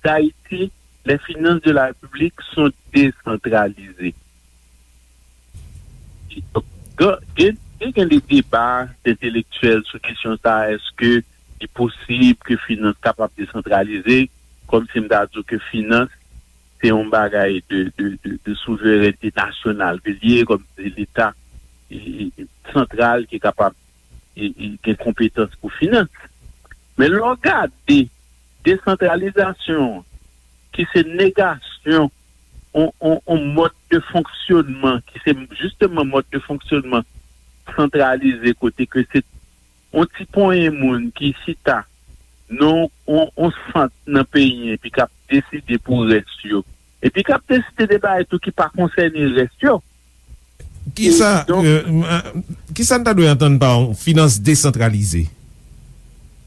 d'Haïti les finances de la République sont décentralisées. Gen, gen, gen de deba entelektyèl sou kesyon sa, èske li posib ke finans kapab desantralize, kòm si m ta di w ke finans se yon bagay de, de, de, de souverènte nasyonal ke li ye, kòm si se Leta e, e, e, santral ki kapab e, e, gen konpetans pou finans. Men lè w gade desantralizasyon an, ki se negasyon on, on, on mòd de fonksyonman, ki se jisteman mòd de fonksyonman santralize, kote ke se on ti ponyen moun ki chita nan on, on sant nan peyi, epi k ap deside pou rès yo, epi k ap deside de bagay tou ki pa konsène rès yo. Kisa, E, donk, euh, m, euh, kisa n ta dwe antann pa yon finans desantralize?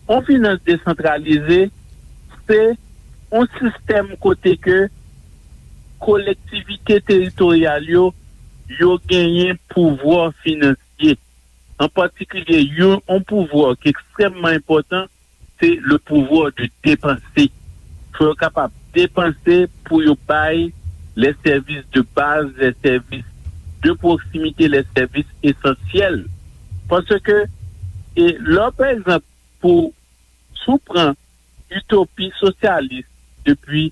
Yon finans desantralize, se yon sistèm kote ke kolektivite teritoryal yo, yo genyen pouvwa finansye. An patikilye, yon, yon pouvwa ki ekstrèmman enpòtan, se le pouvoir de dépenser. Fò yo kapab depanse pou yo bay les services de base, les services de proximité, les services essentiels. Paske, e, lè, pa egzanp, pou, si w pran itopi sosyalis depi,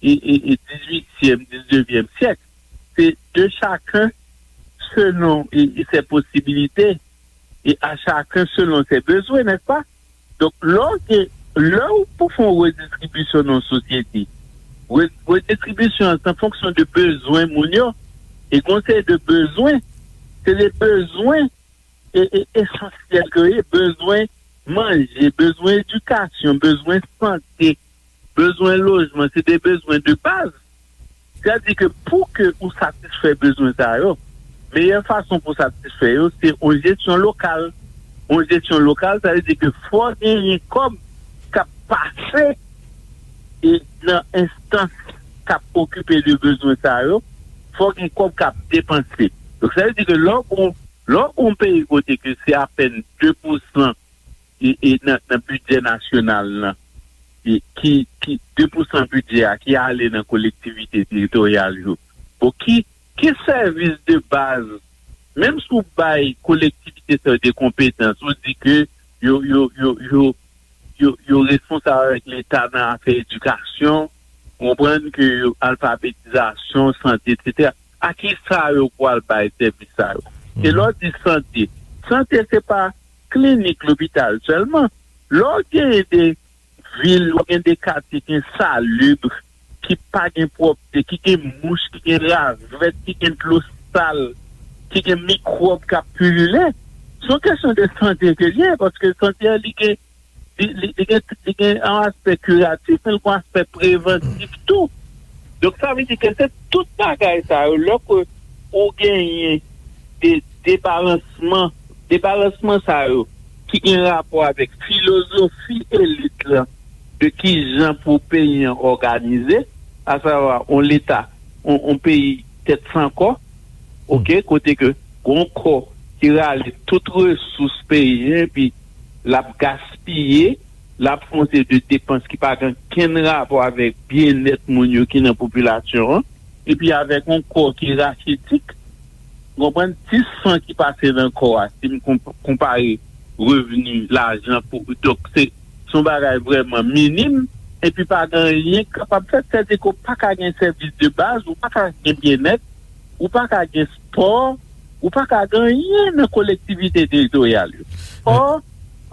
e, e, e dizuityèm, diznevyèm syèk, se de chacun selon, e, e ses possibilités, et à chacun selon ses besoins, n'est-ce pas? Donk, lè w gen, lè w pou fè yon redistribisyon nan yon sosyete, re-, redistribisyon an se an fonksyon de bezwen moun yo, e gen yon seri de bezwen, se de bezwen e, e, esansyèl ke yo ye, bezwen manje, bezwen edikasyon, bezwen sante, bezwen lojman, se de bezwen de baz. Sètadi ke pou ke ou satisfè bezwen sa yo, meyè fason pou satisfè yo, se yon jesyon lokal. Yon jesyon lokal, sa vle di ke fò genyen kòb k ap pase e nan enstans k ap okipe de bezwen sa yo, fò gen kòb k ap depanse. Donk, sa vle di ke lè w, lè w yon peyi kote ke se apèn de pousan e, e nan, nan bidjè nasyonal lan, e ki, ki de pousan bidjè a ki ale nan kolektivite teritoryal yo. Bon, ki, ki sèvis de baz, menm si w bay kolektivite sa yo de konpetans, ou di ke yo, yo, yo, yo, yo, yo responsab avèk Leta nan afè edikasyon, ou konprann ke yo alfabetizasyon, sante, etsetera. A kisa yo pral bay sèvis sa yo? E lè w di sante, sante se pa klinik, lopital sèlman. Lè w genyen de vil, w gen de katye ki ensalib, ki pa gen pwòpte, ki gen mouch, ki gen ravèt, ki gen dlo sal, ki gen mikwòb k ap pilile, se yon kesyon de sante ke l ye, paske sante a, li gen, li, li, li gen, li gen yon aspè kiratif, men l gen yon aspè prevantif tou. Donk, sa vle di ke se tout bagay sa yo, lè ke ou genyen de debalansman, debalansman sa yo ki gen rapò avèk filozofi elit lan de kijan pou peyi an òganize, asavwa yon leta, yon, yon peyi tèt san kò, oke, kote ke gon kò ki rale tout resous peyi an, epi l ap gaspiye, l ap fè yon seri de depans ki pa gen okenn rapò avèk byennèt moun yo ki nan popilasyon an, epi avèk yon kò ki rachitik, w konprann, ti san ki pase nan kò a, si m konp-, konpare revni, lajan pou, donk se, se yon bagay vrèman minim, epi pa gen anyen k kapab fèt, sètadi ke w pa ka gen sèvis de baz, ou pa ka gen byennèt, ou pa ka gen spò, ou pa ka gen anyen nan kolektivite teritoryal yo. Ò,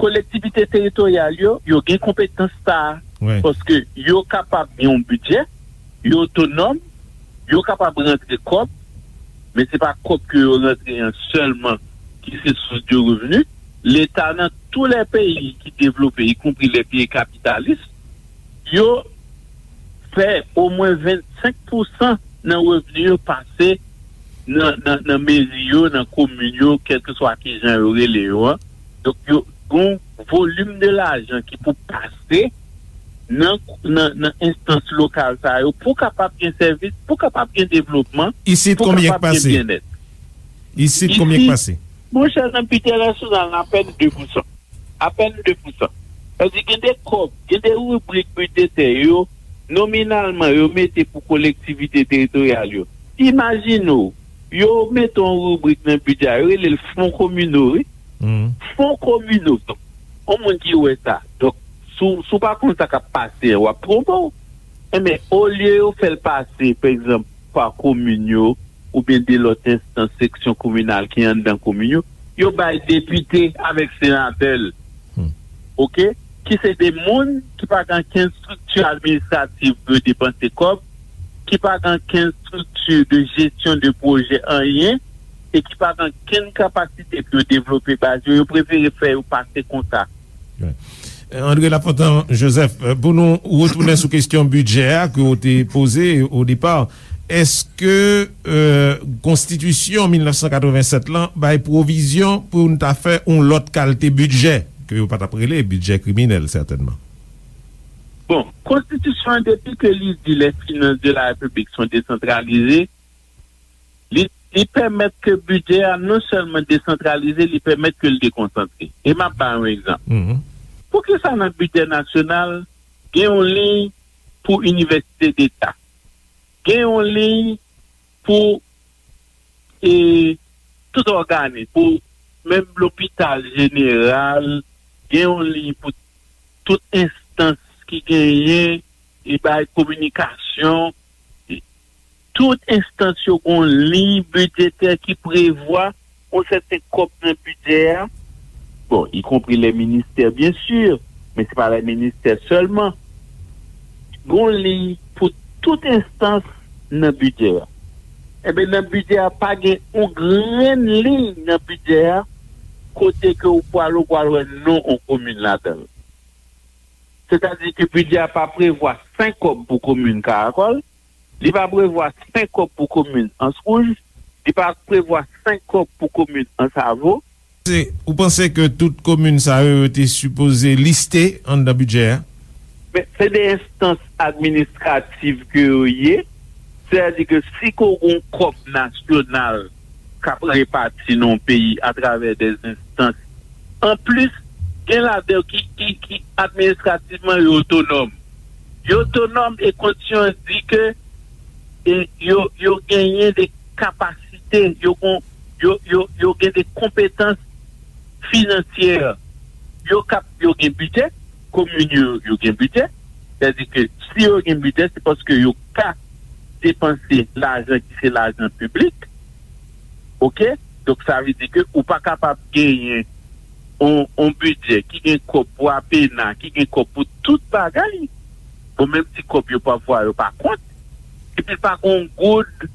kolektivite teritoryal yo, yo gen konpetans sa a, paske yo kapab gen yon bidjè, yo otonòm, yo kapab rantre kòb, men se pa kòb ke yo rantre an sèlman ki se sous de revni. Leta nan tou lè peyi ki devlope, ikonpri lè peyi kapitalis, yo fè omwen vennsenk pousan nan revni yo pase nan, nan, nan meri yo, nan komin yo, kèlkeswa kijan yo rele yo an. Donk, yo gen yon volim de lajan ki pou pase nan, nan, nan enstans lokal sa yo pou kapab gen sèvis, pou kapab gen devlopman, Isit, pou konbyen k kapab gen pase? Byennèt. Isit, konbyen k Isit, pase? Monchè, nan bidjè nasyonal, apèn de pousan. Apèn de pousan. Sa vle di, gen de kòb, gen de ribrik bidjetè yo, nominalman yo mete pou kolektivite teritoryal yo. Imajine w, yo mete yon ribrik nan bidjè a, yo rele l fon kominal, wi. Fon kominal. Donk, yon moun ki wè sa. Donk, si w, si w pa konn sa k ap pase an, w ap twonpe w. Enben, olye yo fè l pase, pa egzanp, pa komin yo, oubyen de lòt enstans seksyon kominal ki anndan komin yo, yo bay depite avèk senatè l. Oke? Ki se de moun ki pa gen okenn estrikti administratif pou yo depanse kòb, ki pa gen okenn estrikti de jesyon de pwojè anyen, e ki pa gen okenn kapasite pou yo devlope baz yo, yo prefere fè yo pase konsa. Wi. André Lafontant Joseph, pou nou retounen sou kesyon bidjè a ke w te poze o depa, èske, euh, konstitisyon mil nèf san katreven sèt lan bay pwovizyon pou n ta fè yon lòt kalte bidjè, ke yo pa t ap rele bidjè kriminèl, sètènman? Bon, konstitisyon an, depi ke li di les finances de la République sont décentralisées, li, li pèmèt ke bidjè a non sèlman desantralize, li pèmèt ke l dekonsantre. E m ap ba yon egzanp. Poukisa nan bidjè nasyonal, gen yon liy pou inivèsite deta, gen yon liy pou, e, tout òganis, pou menm lopital jeneral, gen yon liy pou tout enstans ki genyen, e bay kominikasyon, e tout enstans yo gen yon liy bidjetè ki prevwa yon sèten kòb nan bidjè a. Bon, ikonpri lè ministè, byen si, men se pa lè ministè sèlman. Gen yon liy pou tout enstans nan bidjè a. Enben, nan bidjè a, pa gen yon grenn liy nan bidjè a kote ke ou pral, ou pral wè non yon komin ladan l. Sètadi ke bidjè a pa prevwa senk kòb pou komin Karakòl, li pa prevwa senk kòb pou komin Anse Rouge, li pa prevwa senk kòb pou komin Anse Avaux. Se, ou panse ke tout komin sa yo, yo te sipoze liste anndan bidjè a? Men, se de enstans administratif ke yo ye. Sètadi ke si ke w gen yon kòb nasyonal k ap repati nan yon peyi atravè de enstans, anplis, gen ladan yo ki, ki, ki administrativman yo otonòm. Yo otonòm e konstitisyon an di ke, e, yo, yo genyen de kapasite, yo gon, yo, yo, yo gen de konpetans finansyè. Yo kap, yo gen bidjè, komin yo, yo gen bidjè. Sètadi ke si yo gen bidjè, se paske yo ka depanse lajan ki se lajan piblik. Oke? Donk, sa vle di ke ou pa kapab genyen on, on bidjè ki gen kòb pou apena, ki gen kòb pou tout bagay. Bon, menm ti kòb yo pafwa yo pa kont. Epi pa gen on goud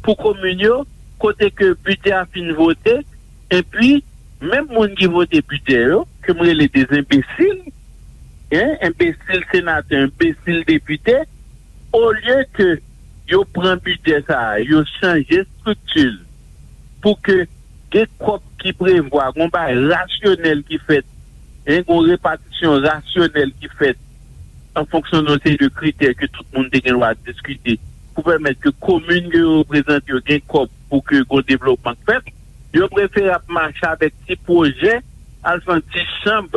pou komin yo, kote ke bidjè a fin vote, epi menm moun ki vote bidjè yo, ke m rele de enbesil, en, enbesil senatè, enbesil depite, olye ke yo pran bidjè sa a, yo chanje estrikti l pou ke gen kòb ki prevwa, gon bagay rasyonèl ki fèt, en, gon repatisyon rasyonèl ki fèt an fonksyon de yon seri de kritè ke tout moun te gen dwa diskite pou pèmèt ke komin ke yo reprezante yo gen kòb pou ke gon devlopman k fèt. Yo prefere ap mache avèk ti pwojè, al fè yon ti chanm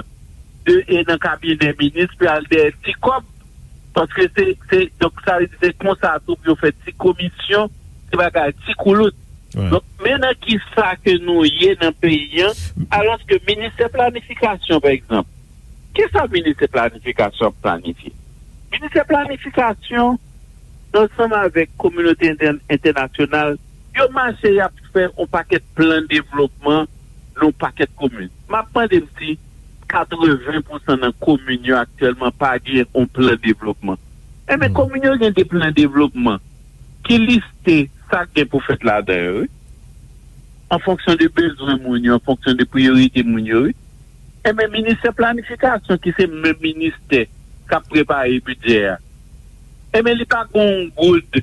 de, e nan kabinè minis, pou al dèyè ti kòb, paske se, se, donk, sa vle di se konsa tou pou yo fè ti komisyon, ti bagay, ti koulout. Donk, men nan ki sa ke nou ye nan peyi an, alòske ministè planifikasyon, pa egzanp, ki sa ministè planifikasyon ap planifye? Ministè planifikasyon, ansanm avèk kominote entè-, entènasyonal, yo mache, y ap fè yon pakèt plan devlopman nan yon pakèt komin. M ap mande m si katreven pousan nan komin yo aktyèlman pa gen yon plan devlopman. Enben, komin yo gen de plan devlopman ki liste sa k gen pou fèt ladan yo, wi, an fonksyon de bezwen moun yo, an fonksyon de priyorite moun yo, wi. Enben, ministè planifikasyon, ki se menm ministè k ap prepare bidjè a, enben, li pa gen yon goud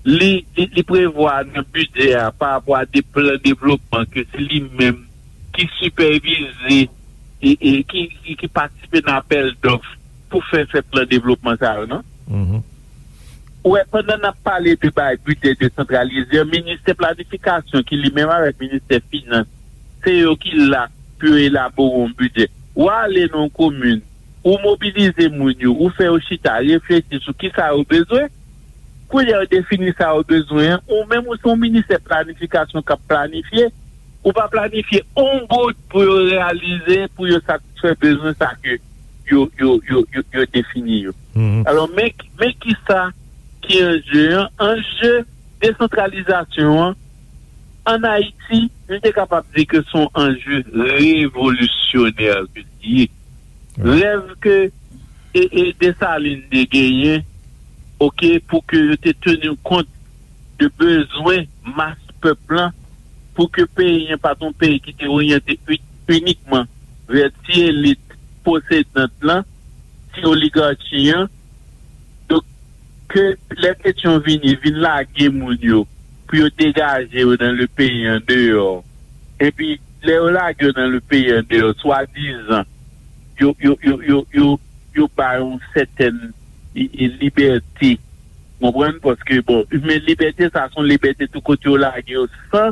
li, li, li prevwa nan bidjè a pa rapò a de plan devlopman ke se li menm ki sipèvize e, e ki, ki, ki patisipe nan apèl dòf pou fè, fè plan devlopman sa yo, non? Ou wè, pandan n ap pale de bay bidjè desantralize an, ministè planifikasyon ki li menm avèk ministè finans, se yo ki la pou yo elabore yon bidjè. W ale nan yon komin, ou mobilize moun yo, ou fè yo chita, reflechi sou kisa yo bezwen. Kounye a yo defini sa yo bezwen an, ou menm ou se yon ministè planifikasyon k ap planifye, ou pa planifye yon goud pou yo reyalize, pou yo satisfè bezwen sa ke yo, yo, yo, yo, yo defini yo. Alò, men, men kisa ki anje an? Anje desantralizasyon an, ann Ayiti, nou te kapab di ke se yon anje revolisyonè ke li ye. Rèv ke e, e Desalin te genyen, oke, pou ke yo te teni kont de bezwen mas pèp lan, pou ke peyi an pa t yon peyi ki te oryante u-, inikman vè ti elit posedant lan, ti oligachi an. Donk, ke lè Petyon vini, vin lage moun yo, pou yo degaje yo nan le peyi andeyò. Epi, lè yo lage yo nan le peyi andeyò, swadizan, yo, yo, yo, yo, yo, yo ba yon sètèn i- i- libète. Konprann? Paske, bon, men libète sa, se yon libète tou kote yo lage yo san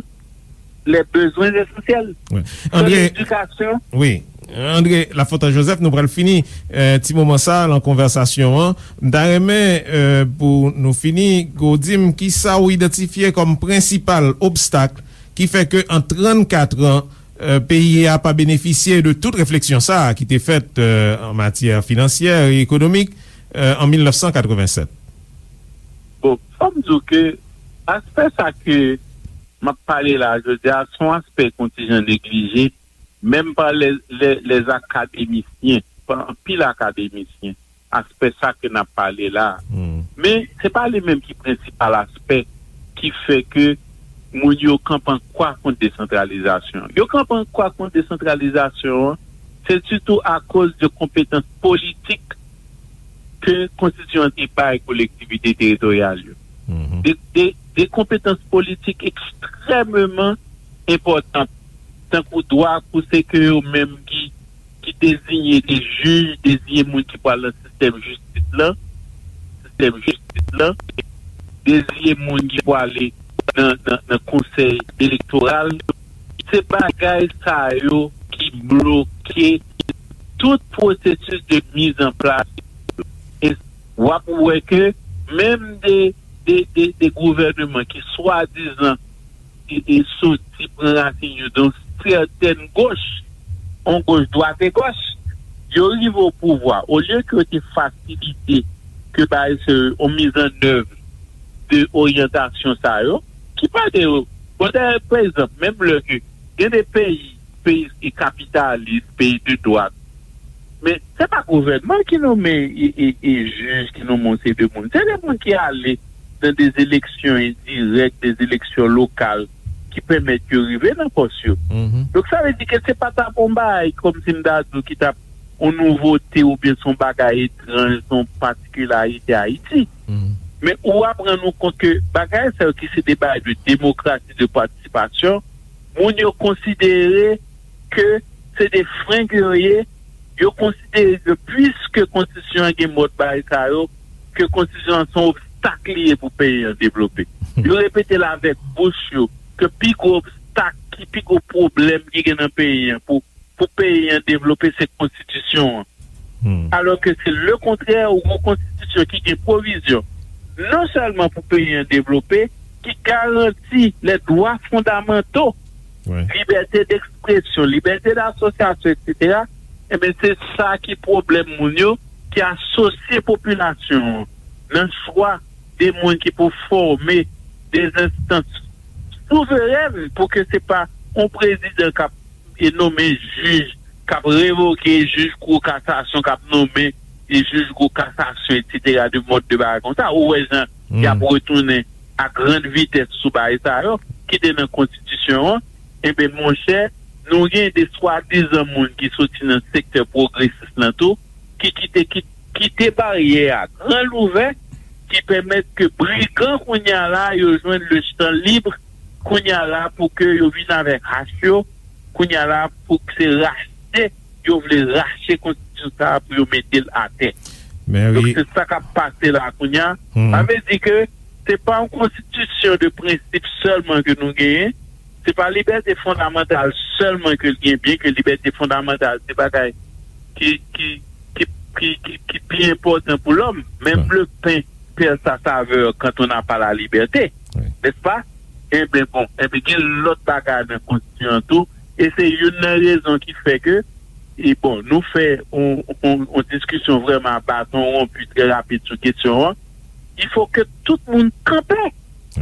les besoins essentiels. Wi. San André, ledikasyon. Wi. André Lafontaine Joseph, nou pral fini eh, ti moman sa nan konvèsasyon an. M ta renmen eh, pou nou fini, ke w di m kisa w idantifye kòm prensipal obstak ki fè ke an trannkat an, eh, peyi a pa benefisye de tout refleksyon sa a ki te fèt eh, an matyè finansyè e ekonomik eh, an mil nèf san katrevennsèt. Bon, fò m di w ke aspè sa ke m ap pale la jodi a, se yon aspè kontijan neglije, menm pa lè, lè, lè akademisyen, pa anpil akademisyen, aspè sa ke n ap pale la. Men, se pa li menm ki prensipal aspè ki fè ke moun yo kanpe an kwa kont desantralizasyon. Yo kanpe an kwa kont desantralizasyon an, se sitou akoz de konpetans politik ke konstitisyon an te bay kolektivite teritoryal yo. De, de, de konpetans politik ekstrèmeman enpòtan, tankou dwa pou se ke yo menm ki, ki deziye de jij, deziye moun ki pral nan sistèm jistis lan, sistèm jistis lan, deziye moun ki pwale nan, nan, nan konsèy elektoral. Se bagay sa yo ki bloke tout pwosesis de mizanplas. E w ap wè ke menm de, de, de, de gouvènman ki swadizan e, e soti pran rasin yo dan yon sètèn goch, yon goch dwat e goch, yo rive o pouvwa, olye ke yo te fasilite ke bay se yon mizannèv de oryantasyon sa yo, ki pa de yo. Bon, dayè, pa egzanp, menm lè ke gen de peyi, peyi ki kapitalis, peyi de dwat, men se pa gouvènman ki nonmen e, e, e jij, ki nonmen yon seri de moun. Se de moun ki ale nan de eleksyon endirèk, de eleksyon lokal ki pèmèt yo rive nan pòs yo. Donk, sa vle di ke se pa t ap yon bagay kòmsi m ta di w ki t ap yon nouvote oubyen se yon bagay etranj, se yon patikilarite Ayiti. Men ou ap rann ou kont ke bagay sa yo ki se de bagay de demokrasi, de patisipasyon, moun yo konsidere ke se de frenk yo ye, yo konsidere ke piske konstitisyon an gen mòd bagay sa yo, ke konstitisyon an se yon obstak li ye pou peyi an devlope. Yo repete l avèk bouch yo ke pi gwo obstak, ki pi gwo pwoblèm ki gen nan peyi an pou, pou peyi an devlope se konstitisyon an. Alò ke se lekontrè, ou gen yon konstitisyon ki gen pwovizyon non sèlman pou peyi an devlope, ki garanti les droits fondamentaux, libète dekspresyon, libète dasosyasyon, etsetera. Ebyen, se sa ki pwoblèm moun yo ki asosye popilasyon an nan chwa de moun ki pou fòme de enstans souverèn pou ke se pa yon prezidan k ap e nonmen jij, k ap revoke jij kou kasasyon, k ap nonmen e jij kou kasasyon, etsetera, de mòd de bagay konsa. Ou wè jan y ap retounen a grann vitès sou bagay sa yo ki te nan konstitisyon an. Enben, monchè, nou gen de swadizan moun ki soti nan sektè pwogresis lan tou, ki kite, ki kite baryè a gran louvè, ki pèmèt ke brigan kounye a la, yo jwenn le chan lib kounye a la pou ke yo vin avèk hach yo, kounye a la pou ke se rache, yo vle rache konstitisyon sa a pou yo mete l atè. Donk, se sa k ap pase la kounye a. Sa vle di ke se pa yon konstitisyon de prensip sèlman ke nou genyen, se pa libète fondamantal sèlman ke l gen, byen ke libète fondamantal se bagay ki, ki, ki ki, ki, ki pi enpòtan pou lòm. Menm le pen perd sa savè quand on n'a pas la liberté, n'est-ce pas? Enben bon, enben gen lòt bagay nan konstitisyon an tou, e se youn nan rezon ki fè ke, e bon, nou fè yon, yon, yon diskisyon vrèman a baton wonpi trè rapid sou kesyon an. Il faut que tout moun kanpe.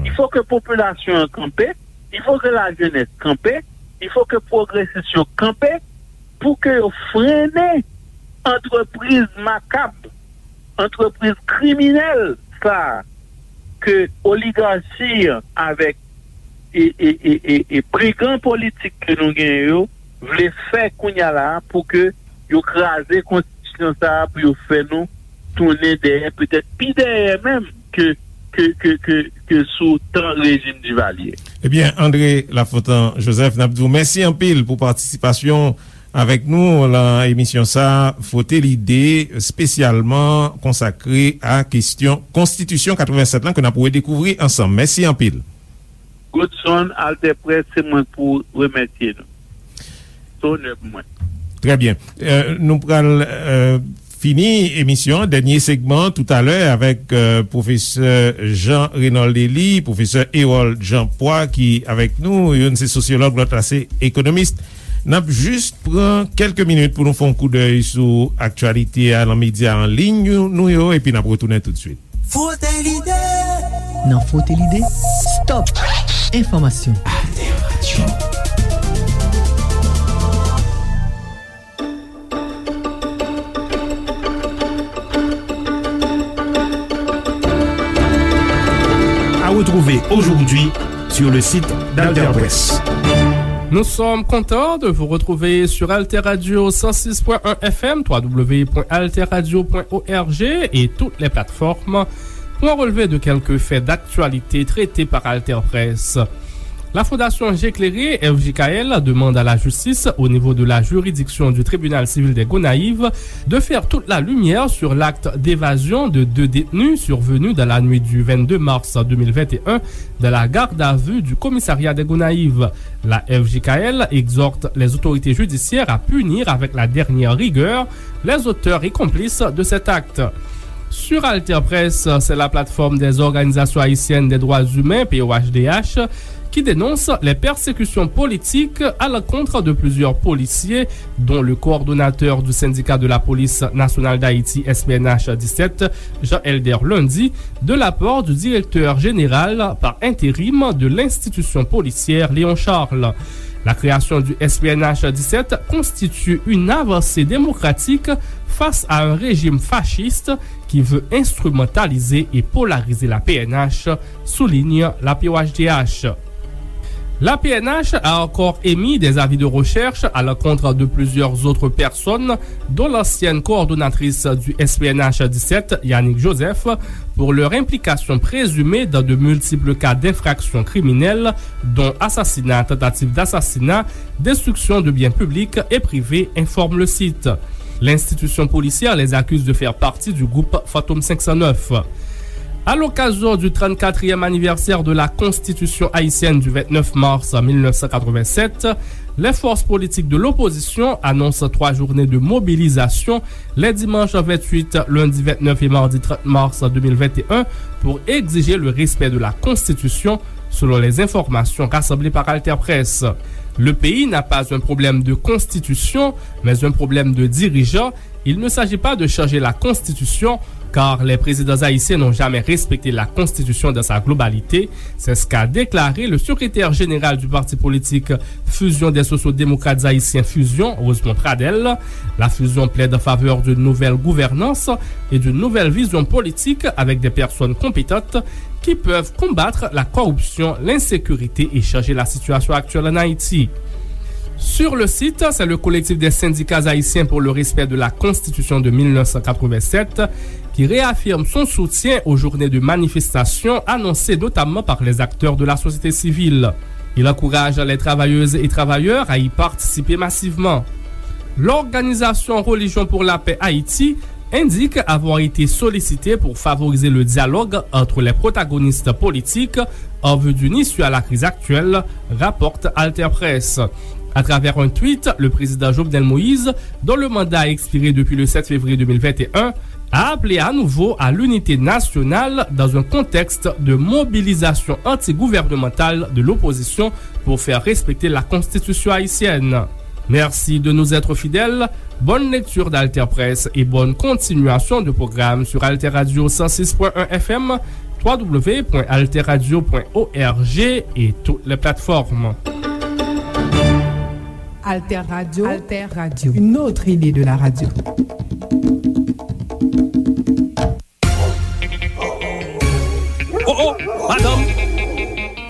Il faut que popilasyon an kanpe. Il faut que la jeunesse kanpe. Il faut que pwogresis yo kanpe pou ke yo frennen antrepriz makab, antrepriz kriminèl sa a ke oligachi avèk e, e, e, e, e brigan politik ke nou genyen yo vle fè kounye a la a pou ke yo kraze konstitisyon sa a pou yo fè nou tounen dèyè, petèt pi dèyè menm ke, ke, ke, ke, ke sou tan rejim Divalye. Ebyen, André Lafontan Joseph, n ap di w mèsi anpil pou patisipasyon avèk nou nan emisyon sa a, Fwote Lide, espesyalman konsakre a kesyon Konstitisyon katrevensèt lan ke n ap redekouvri ansanm. Mèsi anpil. Godson, Alter Presse, se mwen pou remèsye nou. Se onè pou mwen. Trè byen. Euh, nou pral, euh, fini emisyon an, dènye segman, toutalè, avèk, euh, pwofesè Jean Raynold Élie, pwofesè Hérold Jean Poix, ki avèk nou. Youn se sosyològ, lòt la se ekonomis. N ap jis pran kèlke minit pou nou fè yon koudèy sou aktyalite a nan medya an liy nou yo, epi n ap retounen toutswit. Fwote lide. Nan Fwote lide, stop enfòmasyon. Alter Radio. À retrouver aujourd'hui sur le site d'Alter Presse. Nous sommes contents de vous retrouver sur Alter Radio cent six point un F M, trois W point alter radio point org et toutes les plateformes pour un relevé de quelques faits d'actualité traités par Alter Presse. La Fondation J'éclairé, F J K L, demande à la justice, au niveau de la juridiction du tribunal civil des Gonayives, de faire toute la lumière sur l'acte d'évasion de deux détenus survenu dans la nuit du vingt-deux mars deux mille vingt et un dans la garde à vue du commissariat des Gonayives. La F J K L exhorte les autorités judiciaires à punir avec la dernière rigueur les auteurs et complices de cet acte. Sur Alter Presse, c'est la plateforme des organisations haïtiennes des droits humains, P O H D H, qui dénonce les persécutions politiques à l'encontre de plusieurs policiers, dont le coordonnateur du syndicat de la police nationale d'Haïti, S P N H dix-sept, Jean Elder Lundy, de la part du directeur général par intérim de l'institution policière, Léon Charles. La création du S P N H dix-sept constitue une avancée démocratique face à un régime fasciste qui veut instrumentaliser et polariser la P N H, souligne la P O H D H. La P N H a encore émis des avis de recherche à l'encontre de plusieurs autres personnes, dont l'ancienne coordonnatrice du S P N H dix-sept, Yanick Joseph, pour leur implication présumée dans de multiples cas d'infractions criminelles, dont assassinat, tentative d'assassinat, destruction de biens publics et privés, informe le site. L'institution policière les accuse de faire partie du groupe Fantôme cinq cent neuf. À l'occasion du trente-quatrième anniversaire de la Constitution haïtienne du vingt-neuf mars mille neuf cent quatre-vingt-sept, les forces politiques de l'opposition annoncent trois journées de mobilisation les dimanches vingt-huit, lundi vingt-neuf et mardi trente mars deux mille vingt et un pour exiger le respect de la Constitution, selon les informations rassemblées par Alter Presse. Le pays n'a pas un problème de constitution, mais un problème de dirigeants. Il ne s'agit pas de changer la Constitution, car les présidents haïtiens n'ont jamais respecté la Constitution dans sa globalité. C'est ce qu'a déclaré le secrétaire général du parti politique Fusion des Sociaux-Démocrates Haïtiens, Fusion, Rosemond Pradel. La Fusion plaide en faveur d'une nouvelle gouvernance et d'une nouvelle vision politique avec des personnes compétentes qui peuvent combattre la corruption, l'insécurité et changer la situation actuelle en Haïti. Sur le site, c'est le collectif des syndicats haïtiens pour le respect de la Constitution de mille neuf cent quatre-vingt-sept qui réaffirme son soutien aux journées de manifestation annoncées notamment par les acteurs de la société civile. Il encourage les travailleuses et travailleurs à y participer massivement. L'organisation Religion pour la Paix Haïti indique avoir été sollicitée pour favoriser le dialogue entre les protagonistes politiques en vue d'une issue à la crise actuelle, rapporte Alter Presse. À travers un tweet, le président Jovenel Moïse, dont le mandat a expiré depuis le sept février deux mille vingt et un, a appelé à nouveau à l'unité nationale dans un contexte de mobilisation antigouvernementale de l'opposition pour faire respecter la constitution haïtienne. Merci de nous être fidèles. Bonne lecture d'Alter Presse et bonne continuation de programme sur Alter Radio cent six point un F M, trois W point alter radio point org et toutes les plateformes. Alter Radio, Alter Radio, une autre idée de la radio. Oh, oh, madanm,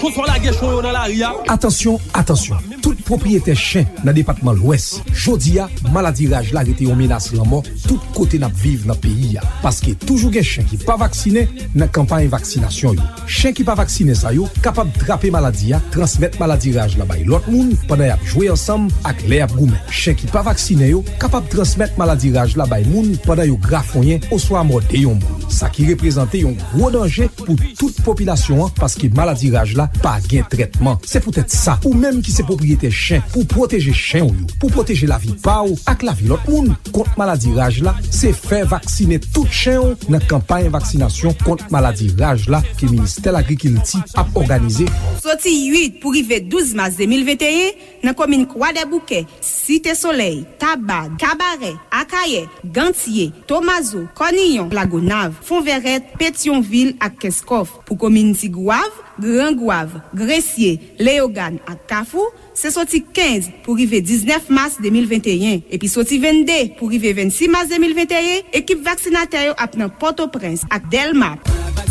konsa w lage chen w yo nan lari a? Atansyon, atansyon! Tout pwopriyetè chen nan depatman Lwès, jodi a, maladi raj la rete yon menas lanmò tout kote n ap viv nan peyi a. Paske toujou gen chen ki pa vaksinen nan kanpay vaksinasyon yo. Chen ki pa vaksinen sa yo kapab trape maladi a, transmèt maladi raj la bay lòt moun pandan y ap jwe ansanm ak lè y ap goumen. Chen ki pa vaksinen yo kapab transmèt maladi raj la bay moun pandan yo grafonyen oswa mòde yon moun. Sa ki reprezante yon gwo danje pou tout popilasyon an, paske maladi raj la pa gen trètman. Se poutèt sa, ou menm ki se pwopriyetè chen, pou pwoteje chen w yo, pou pwoteje lavi pa w ak lavi lòt moun kont maladi raj la, se fè vaksinen tout chen w nan kanpay vaksinasyon kont maladi raj la ke Ministè Lagrikilti ap òganize. Soti uit pou rive douz mas de mil venteyen, nan komin Kwadèboukè, Site Solèy, Taba, Kabarè, Akayè, Gantye, Tomazo, Kòniyon, Lagonav, Fonvèrèt, Petyonvil ak Kenskòf. Pou komin Tigwav, Gran Gwav, Gresye, Leyogàn ak Kafou, se soti kenz pou rive diznèf mas de mil venteyen, epi soti vennde pou rive vennsis mas de mil venteyen, ekip vaksinatè yo ap nan Pòtoprens ak Dèlma.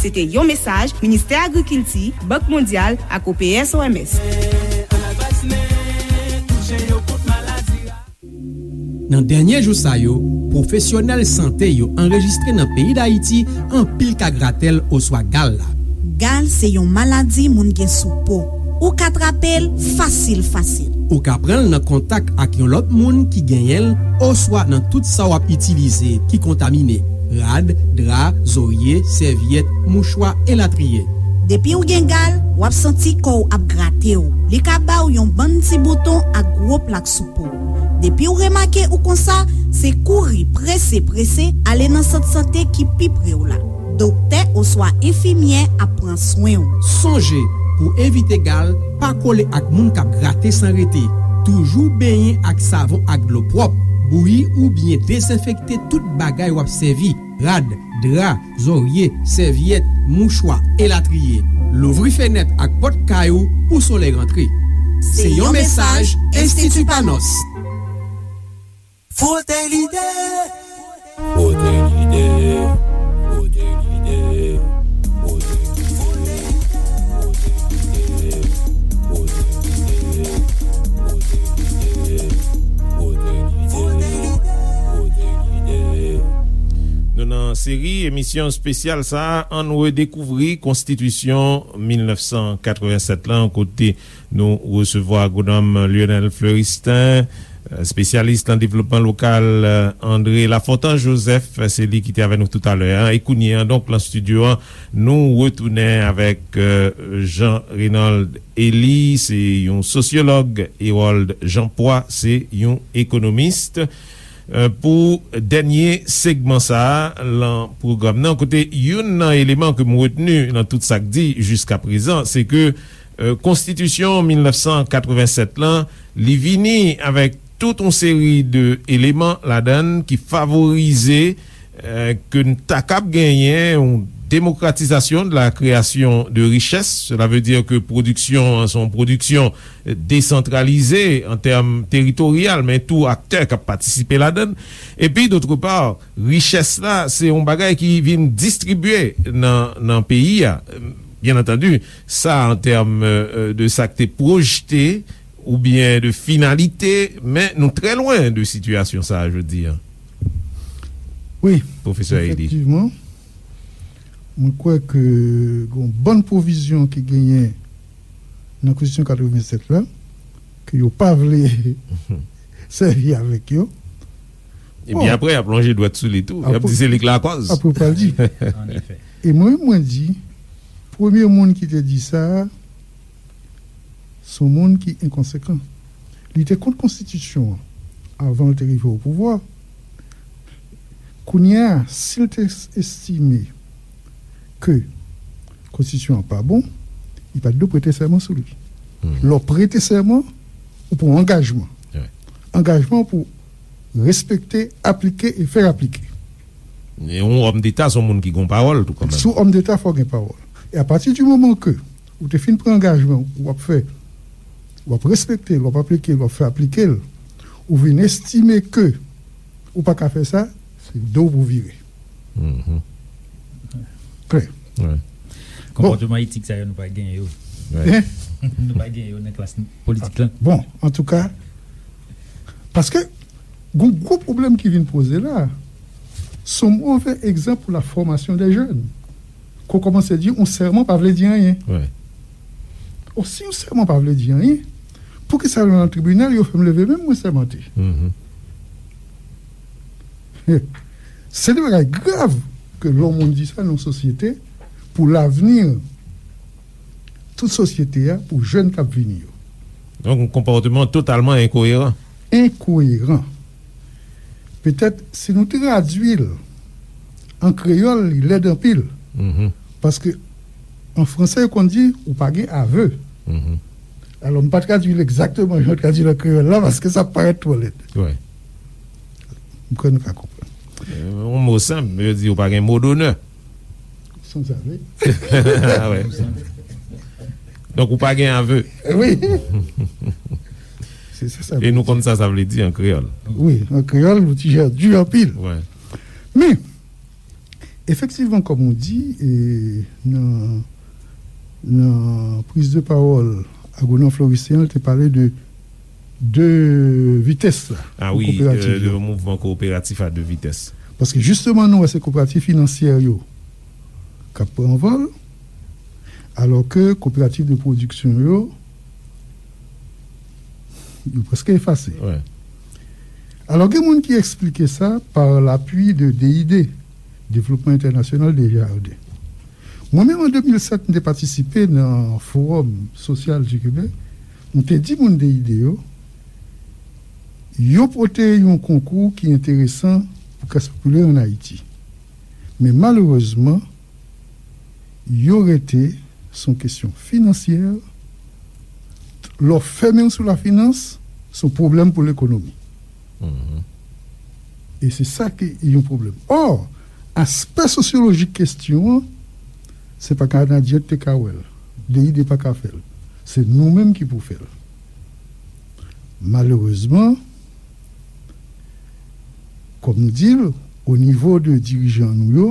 Se te yon mesaj Ministè Agrikilti, Bank Mondyal ak O P S O M S. Nan dènye jou sa yo, pwofesyonèl sante yo anrejistre nan peyi Dayiti anpil ka gratèl oswa gal la. Gal se yon maladi moun gen sou po. Ou ka trape l fasil, fasil. Ou ka pran l nan kontak ak yon lòt moun ki genyen l oswa nan tout sa w ap itilize ki kontamine, rad, dra, zorye, sèvyèt, mouchwa, elatriye. Depi w gen gal, w ap santi kò w ap grate w. Li ka ba w yon bann ti bouton ak gwo plak sou po w. Depi w remake ou konsa, se kouri prese, prese ale nan sant sante ki pi pre w la. Doktè oswa enfimyè ap pran swen w. Sonje, pou evite gal, pa kole ak moun k ap grate san rete. Toujou benyen ak savon ak dlo pwòp. Bouyi oubyen dezenfekte tout bagay w ap sèvi, rad, dra, zorye, sèvyèt, mouchwa, elatriye. Louvri fenèt ak pòt kay ou pou solèy rantre. Se yon mesaj Enstiti Panos. Frote l'idée. Frote l'idée. Frote l'idée. Frote l'idée. Frote l'idée. Frote l'idée. Frote l'idée. Frote l'idée. Frote l'idée. Nou nan seri emisyon espesyal sa a, ann redekouvri konstitisyon mil nèf san katrevennsèt lan, kote nou resevwa agwonòm Lionel Fleuristin, espesyalis nan devlopman lokal, André Lafontant Joseph, se li ki te avè nou toutalè a. E kounye a, donk, nan estidyo a, nou retounen avèk, euh, Jean Raynold Élie, se yon sosyològ, Harold Jean Poix, se yon ekonomis. Euh, pou dènye segman sa a, lan pwogram nan, kote youn nan eleman ke m retni lan tout sa k di jiskaprezan, se ke, euh, konstitisyon mil nèf san katrevennsèt lan, li vini avèk tout yon seri de eleman ladan l ki favorize, euh, ke n ta kab genyen yon démocratisation de la création de richesse. Cela veut dire que pwodiksyon an se yon pwodiksyon desantralize an tèm teritoryal, men tou aktè k ap patisipe ladan l. Epi, dòtrepa, richès la, se yon bagay ki vin distribye nan, nan peyi a. Byen antandi, sa an tèm, euh, de sa k te pwojte oubyen de finalite, men nou trè lwen de sitiyasyon sa a jodi a. Wi, pwofesè Élie. Efektivman, mwen kwè ke gen yon bann pwovizyon ki genyen nan Konstitisyon katrevennsèt la, ke yo pa vle sèvi avèk yo. Epi bon, apre, y ap lonje dwèt sou li tou. Y ap di se li k lakòz. Apre, pral di. An efè. E mwen, mwen di, premye moun ki te di sa, se yon moun ki enkonsekan. Li te kont konstitisyon an avan l te rive o pouvwa. Kounye a, si l te estime ke konstitisyon an pa bon, li pa t dwe prete sèman sou li. Lè w prete sèman, ou pran yon angajman. Angajman pou respekte, aplike e fè aplike. E yon òm deta se yon moun ki gen pawòl tou kanmenm. Sou òm deta, fò gen pawòl. E apati di moman ke ou te fin pran angajman, w ap fè, w ap respekte l, w ap aplike l, w ap fè aplike l, ou vin estime ke ou pa ka fè sa, se do w pou vire. Klè. Konpòtman etik sa yo, nou pa gen yo. Nou pa gen yo nan klas politik lan. Bon, antouka, paske gon gwo pwoblèm ki vin poze la, se yon move egzanp pou la fòmasyon de jèn. Ke w kòmanse di yon sèman pa vle di anyen. O, si yon sèman pa vle di anyen, poukisa lè nan tribinal yo fè m leve men m, mwen sèmante? Se de bagay grav ke lè yon moun di sa nan yon sosyete pou lavni tout sosyete a, pou jèn k ap vini yo. Donk, yon konpòtman totalman enkoyeran. Enkoyeran. Petèt, si nou tradui l an kreyòl, li lèd anpil. Paske an franse, yo konn di, ou pa gen aveu. Alò, m pa tradui l egzakteman jan yo tradui l an kreyòl la, paske sa parèt twò lèd. M kwè nou ka konprann. Yon mo senp, yo di ou pa gen mo donè. Sanzave. Donk, ou pa gen aveu. Wi. Se sa sa vle di. E nou konn sa sa vle di an kreyòl. Wi, an kreyòl, nou ti jan di anpil. Men, efektivman, kòm ou di, e, nan, nan priz de pawòl, Agwonòm Florisyen an te pale de de vitès la, ah wi, kooperatif, de, de mouvman kooperatif a de vitès. Paske jisteman, nou wè se kooperatif finansyè yo k ap pran anvòl, alò ke kooperatif de pwodiksyon yo, yo prèske efase. Alò, gen moun ki eksplike sa pa lapui de D I D, Développement International des Jardins. Mwen menm, an de mil sèt, m te patisipe nan Fowòm Sosyal di Kebèk. M te di moun de I D yo, yo pote yon konkou ki enteresan pou klas popilè ann Ayiti. Men malerezman, yo rete sou kesyon finansyè. Lè w fèmen w sou lafinans, se yon pwoblèm pou lekonomi. E se sa ki yon pwoblèm. Ò, aspè sosyolojik kesyon an, se pa Kanadyen ki te ka wè l. D I D pa ka fè l. Se nou menm ki pou fè l. Malerezman, kòm nou di l, o nivo de dirijan nou yo,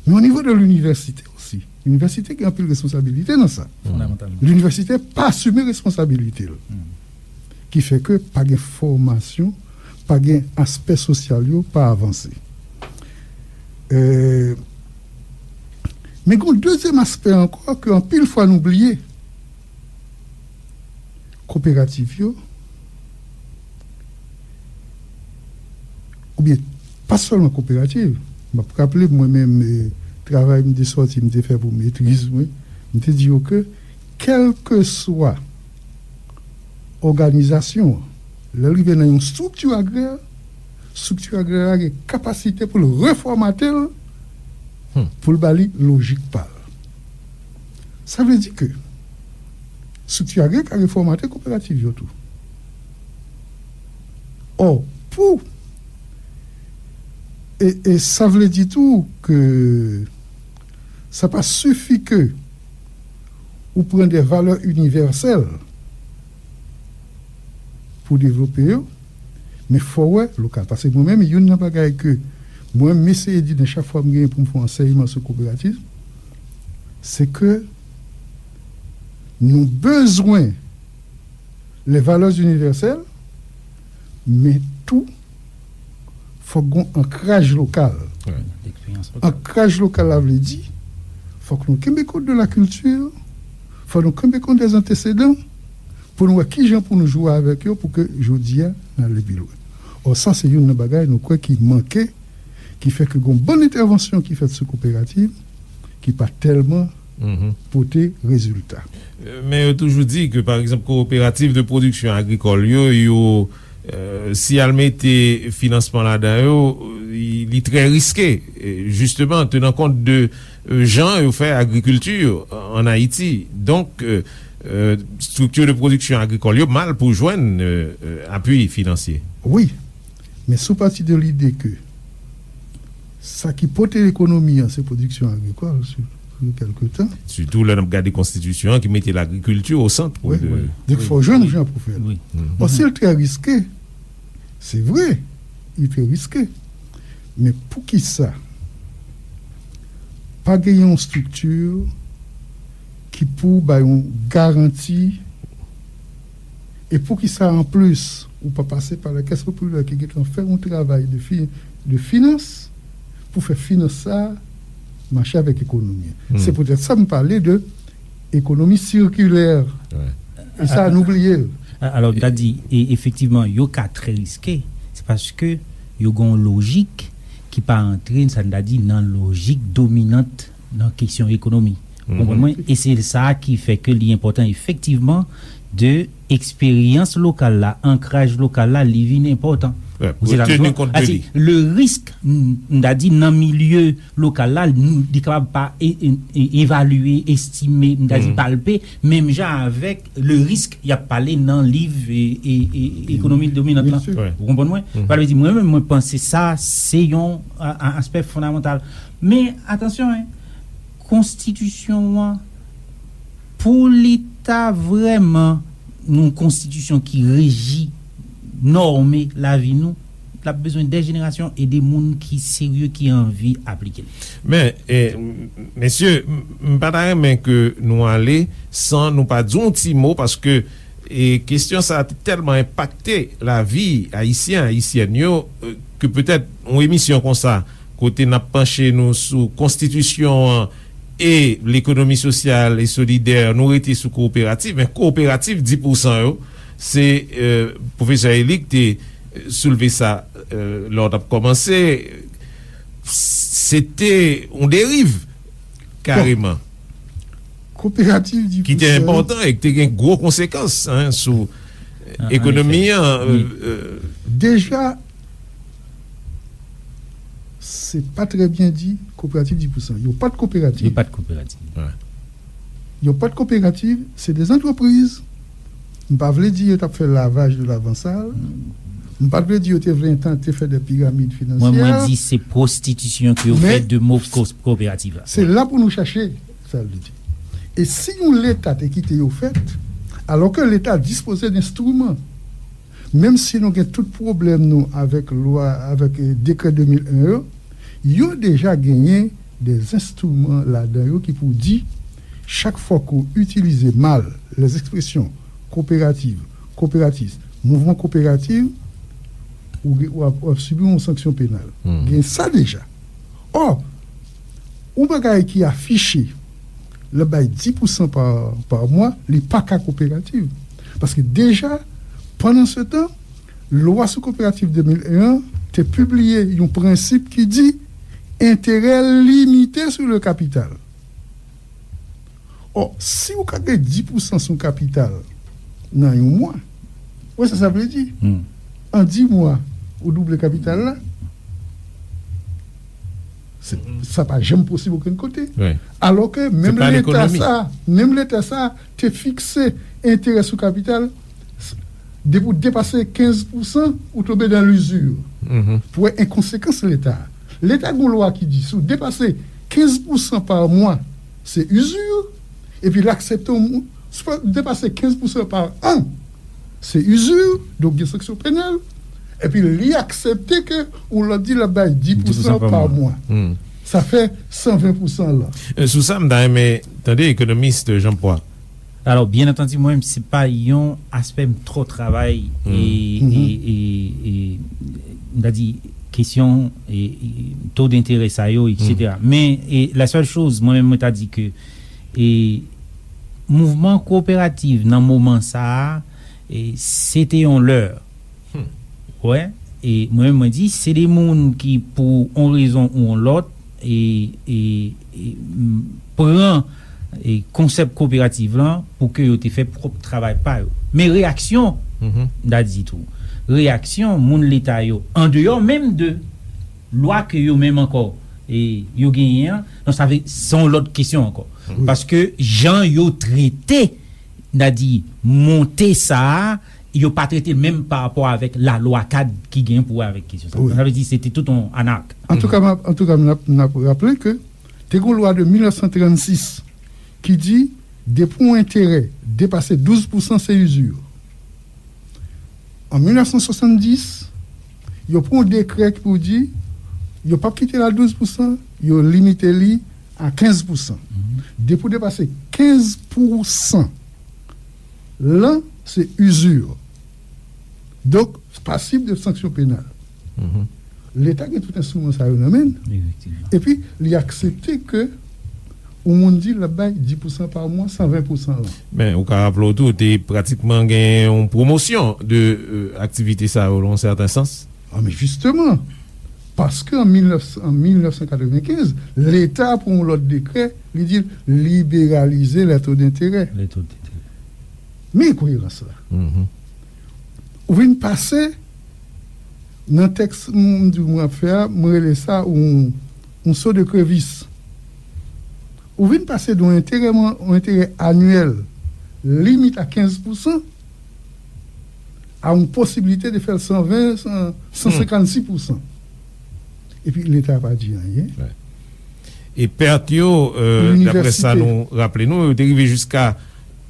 men o nivo de linivèsite osi. Linivèsite gen anpil responsabilite nan sa. Fondamantalman. Linivèsite pa asime responsabilite l. Ki fè ke pa gen fòmasyon, pa gen aspè sosyal yo pa avanse. E, men gen yon dezyèm aspè ankò ke anpil fwa nou bliye. Kooperativ yo, oubyen pa sèlman kooperativ, m ap raple mwen menm, e, travay m te sòti, m te fè pou metriz mwen, m te di yo ke kèlkeswa òganizasyon an, lè l rive nan yon estrikti agrè, estrikti agrè a gen kapasite pou l refòmate l, pou l ba li lojik pa l. Sa vle di ke estrikti agrè ka refòmate kooperativ yo tou. Ò, pou, e, e sa vle di tou ke sa pa sifi ke ou pran de valè inivèsèl pou devlope yo, men fò w wè lokal. Paske mwen menm, youn nan bagay ke mwen, m eseye di nan chak fwa m genyen pou m fè yon ansèyman sou kooperativ, se ke nou bezwen les valeurs universelles, men tou, fòk gen yon ankraj lokal. Ankraj lokal la vle di, fòk nou kenbe kont de la kilti, fòk nou kenbe kont de antesedan, pou nou wè kijan pou nou jwe avèk yo, pou ke jodi a, n ale pi lwen. Ò, sa se youn nan bagay nou kwè ki manke, ki fè ke gen yon bann entèvansyon ki fèt sou kooperativ, ki pa tèlman pote rezilta. Men yo toujou di ke, pa egzanp, kooperativ de pwodiksyon agrikòl yo, yo, euh, si y al mete finansman ladan yo, li, li trè riske, jisteman, tenan kont de, euh, jan yo fè agrikilti an Ayiti. Donk, euh, euh, estrikti de pwodiksyon agrikòl yo mal pou jwenn, euh, euh, apui finansye. Wi, men si w pati de lide ke sa ki pote ekonomi an, se pwodiksyon agrikòl, sou, sou kèlke tan. Sitou lè n ap gade konstitisyon an ki mete lagrikilti o sant. Wi, de, wi. Donk, fò jwenn jan pou fè l. Wi. Bon, si l trè riske, se vre, li trè riske. Men poukisa pa gen yon estrikti ki pou bay yon garanti E poukisa, anplis, ou pa pase pa la Caisse Populaire ki gentan fè yon travay de fi-, de finans pou fè finans sa a mache avèk ekonomi an? Se poutèt sa m pale de ekonomi sikilè. E sa, nou bliye l. A-, alò, m ta di, e, efektivman, yo ka trè riske. Se paske yo gen yon lojik ki pa antre, sa n ta di, nan lojik dominant nan kesyon ekonomi. Ou konprann mwen? E se sa ki fè ke li enpòtan efektivman de eksperyans lokal la, ankraj lokal la, li vin enpòtan. Ou se la, teni kont de li. Le risk, m, m ta di nan milye lokal la, li kapab pa e, e, e, evalye, estime, m ta di palpe, menm jan avèk le risk y ap pale nan liv e, e, e, ekonomi dominant lan. Ou konprann mwen? Sa vle di, mwen menm, mwen panse sa, se yon, a, a, aspè fondamantal. Men, atansyon, en, konstitisyon an, pou li ta vrèman yon konstitisyon ki reji, nòme lavi nou, l ap bezwen de jenerasyon e de moun ki serye, ki anvi aplike l. Men, e, m, mesye, m, m pa ta renmen ke nou ale san nou pa di yon ti mo, paske, e, kesyon sa a te tèlman enpakte lavi Ayisyen, Ayisyèn yo, e, ke petèt yon emisyon konsa, kote n ap panche nou sou konstitisyon an e lekonomi sosyal e solidè, nou rete sou kooperativ, men kooperativ dis pousan yo, se, e, pwofesè Élie k te soulve sa, e, lè w t ap kòmanse, se te yon deriv, kareman. Kooperativ dis pousan. Ki te enpòtan e ki te gen gwo konsekans, en, sou ekonomi an. Deja, se pa trè byen di, kooperativ dis pousan. Yo pa t kooperativ. Yo pa t kooperativ. Yo pa t kooperativ, se de zantrepriz. M pa vle di yo t ap fè lavaj de lavansal. M pa t vle di yo te vle tante fè de piramid finansyè. Mwen, mwen di se pwostitisyon ke yo fè de mo ko-, kooperativ la. Se la pou nou chache, sa vle di. E si yon Leta te kite yo fèt, alò ke Leta dispoze d enstriman, menm si nou gen tout pwoblèm nou avèk lwa, avèk, e, dekrè de mil en yo, yo deja genyen de enstriman ladan yo ki pou di, chak fwa ke w itilize mal les expressions kooperativ, kooperatis, mouvman kooperativ, ou, w ap, w ap sibi yon sanksyon penal. Gen sa deja. Ò, yon bagay ki afiche, l ap bay dis pousan pa, pa mwa, li pa ka kooperativ. Paske deja, pandan se tan, lwa sou kooperativ de mil en an te pibliye yon prensip ki di enterè limite sou le kapital. Ò, si ou ka gen dis pousan sou kapital nan yon mwa, ou wè sa sa vle di? An dis mwa, ou double kapital la. Se, sa pa janm posib okenn kote. Alò ke menm Leta sa, menm Leta sa te fikse enterè sou kapital, depi w depase kenz pousan, ou tonbe dan lizir. Pou wè enkonsekans Leta. Leta gen yon lwa ki di, si w depase kenz pousan pa mwa, se izir, epi l aksepte yon moun, si w depase kenz pousan pa an, se izir, donk gen sanksyon penal, epi li aksepte ke yon lòt di l ap bay dis pousan pa mwa. Sa fè san ven pousan la. E, sou sa, m ta renmen tande ekonomis Jean Paul. Alò, byen antandi, mwen menm, se pa yon aspè m twò travay, e, e, e, e, m ta di, kesyon, e, e, to denterè sa yo, etsetera. Men, e, la sèl choz, mwen menm, mwen ta di ke, e, mouvman kooperativ nan moman sa a, e, se te yon lè. Wè, e mwen menm mwen di, se de moun ki pou yon rezon ou yon lòt, e, e, e, m, pran e konsèp koperativ lan pou ke yo te fè pwòp travay pa yo. Men reyaksyon, m ta di tou, reyaksyon moun leta yo, andeyò menm de lwa ke yo menm ankò e yo genyen an, non, sa vle, se yon lòt kesyon ankò. Paske jan yo trete, m ta di, monte sa a, yo pa trete l menm pa rapò avèk lalwa kad ki genyen pou wè avèk kesyon sa. Sa vle di, se te tout yon anak. Antouka, m ap, antouka, m ap, m ap raple ke te gen yon lwa de mil nèf san trannsis ki di, depi yon enterè depase douz pousan, se izi. An mil nèf san swasanndis, yo pran yon dekrè ki pou di, yo p ap kite l a douz pousan, yo limite li a kenz pousan. Depi w depase kenz pousan, lan, se izi. Donk, pasib de sanksyon penal. Leta gen tout enstriman sa yo nan men l. Epi, li aksepte ke yon moun di l ap bay dis pousan pa mwa, san ven pousan lan. Men, ou ka raple w tou, te pratikman gen yon pwomosyon de, euh, aktivite sa yo, nan yon sèten sans. Ah, men jisteman, paske an mil nèf, an mil nèf san katrevenkenz, Leta pran yon lòt dekrè, li di l liberalize les taux d'intérêt. Les taux d'intérêt. Men enkoyerans la. Ou vin pase nan tèks m di w mwen ap fè a, mwen rele sa yon, yon so de krevis. Ou vin pase de yon enterè, yon enterè anyèl limite a kenz pousan a yon posiblite de fè l san ven, san, san senkannsis pousan. Epi Leta pa di anyen. E pèt yo, euh, daprè sa nou raple nou, yo te rive jiska,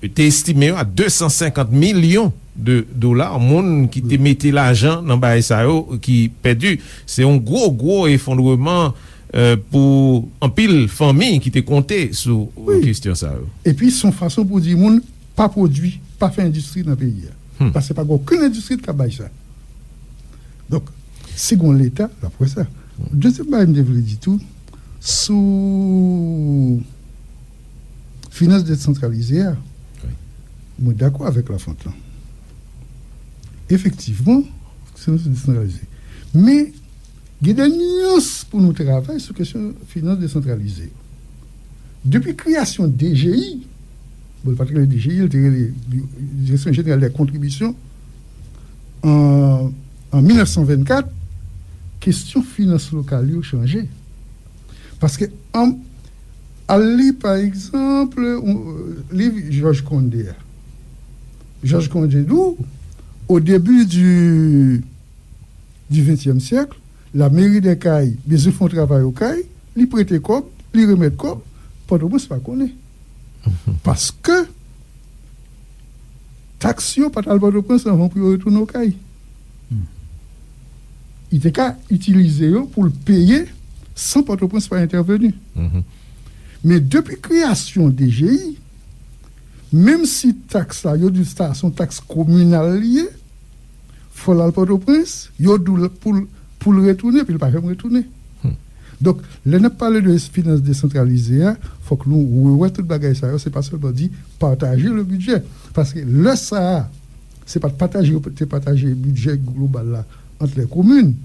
te estime yo a de san senkant milyon de dola, moun ki te mete lajan nan bagay sa yo ki pèdi. Se yon gwo, gwo efondreman, euh, pou anpil fanmi ki te konte sou, euh, kesyon sa yo. Epi se yon fason pou di moun pa pwodui, pa fè endistri nan peyi a. Paske pa gen okenn endistri ki ka bay sa. Donk, si gen yon Leta, l ap wè sa. Dezyèm bagay m te vle di tou, sou finans desantralize a, mwen dakò avèk Lafontan. Efektivman, finans desantralize. Men, gen de nyans pou nou travay sou kesyon finans desantralize yo. Depi kreyasyon D G I, bon, li pa t rele D G I, li te rele Direksyon Jeneral dè Kontribisyon, an, an mil nèf san vennkat, kesyon finans lokal yo chanje. Paske, an, al li, pa egzanp, yon, liv Georges Condé a. Georges Condé di w, au début du, du vingtième siècle, la mairie des Cayes bezwen fè yon travay o Kay, li prete kòb, li remèt kòb, Pòtoprens pa konnen. Paske taks yo pa t al Pòtoprens anvan pou yo retounen o Kay. Li te ka itilize yo pou l peye san Pòtoprens pa entèveni. Men depi kreyasyon D G I, menm si taks la, yo di sa se yon taks kominal li ye, fò l al Pòtoprens, yo di w pou l, pou l retounen, epi l pa janm retounen. Donk, lè n ap pale de finans desantralize a, fòk nou rewè tout bagay sa yo, se pa sèlman di pataje le budget. Paske lè sa a, se pa t pataje, yo te pataje bidjè global la ant lè komin,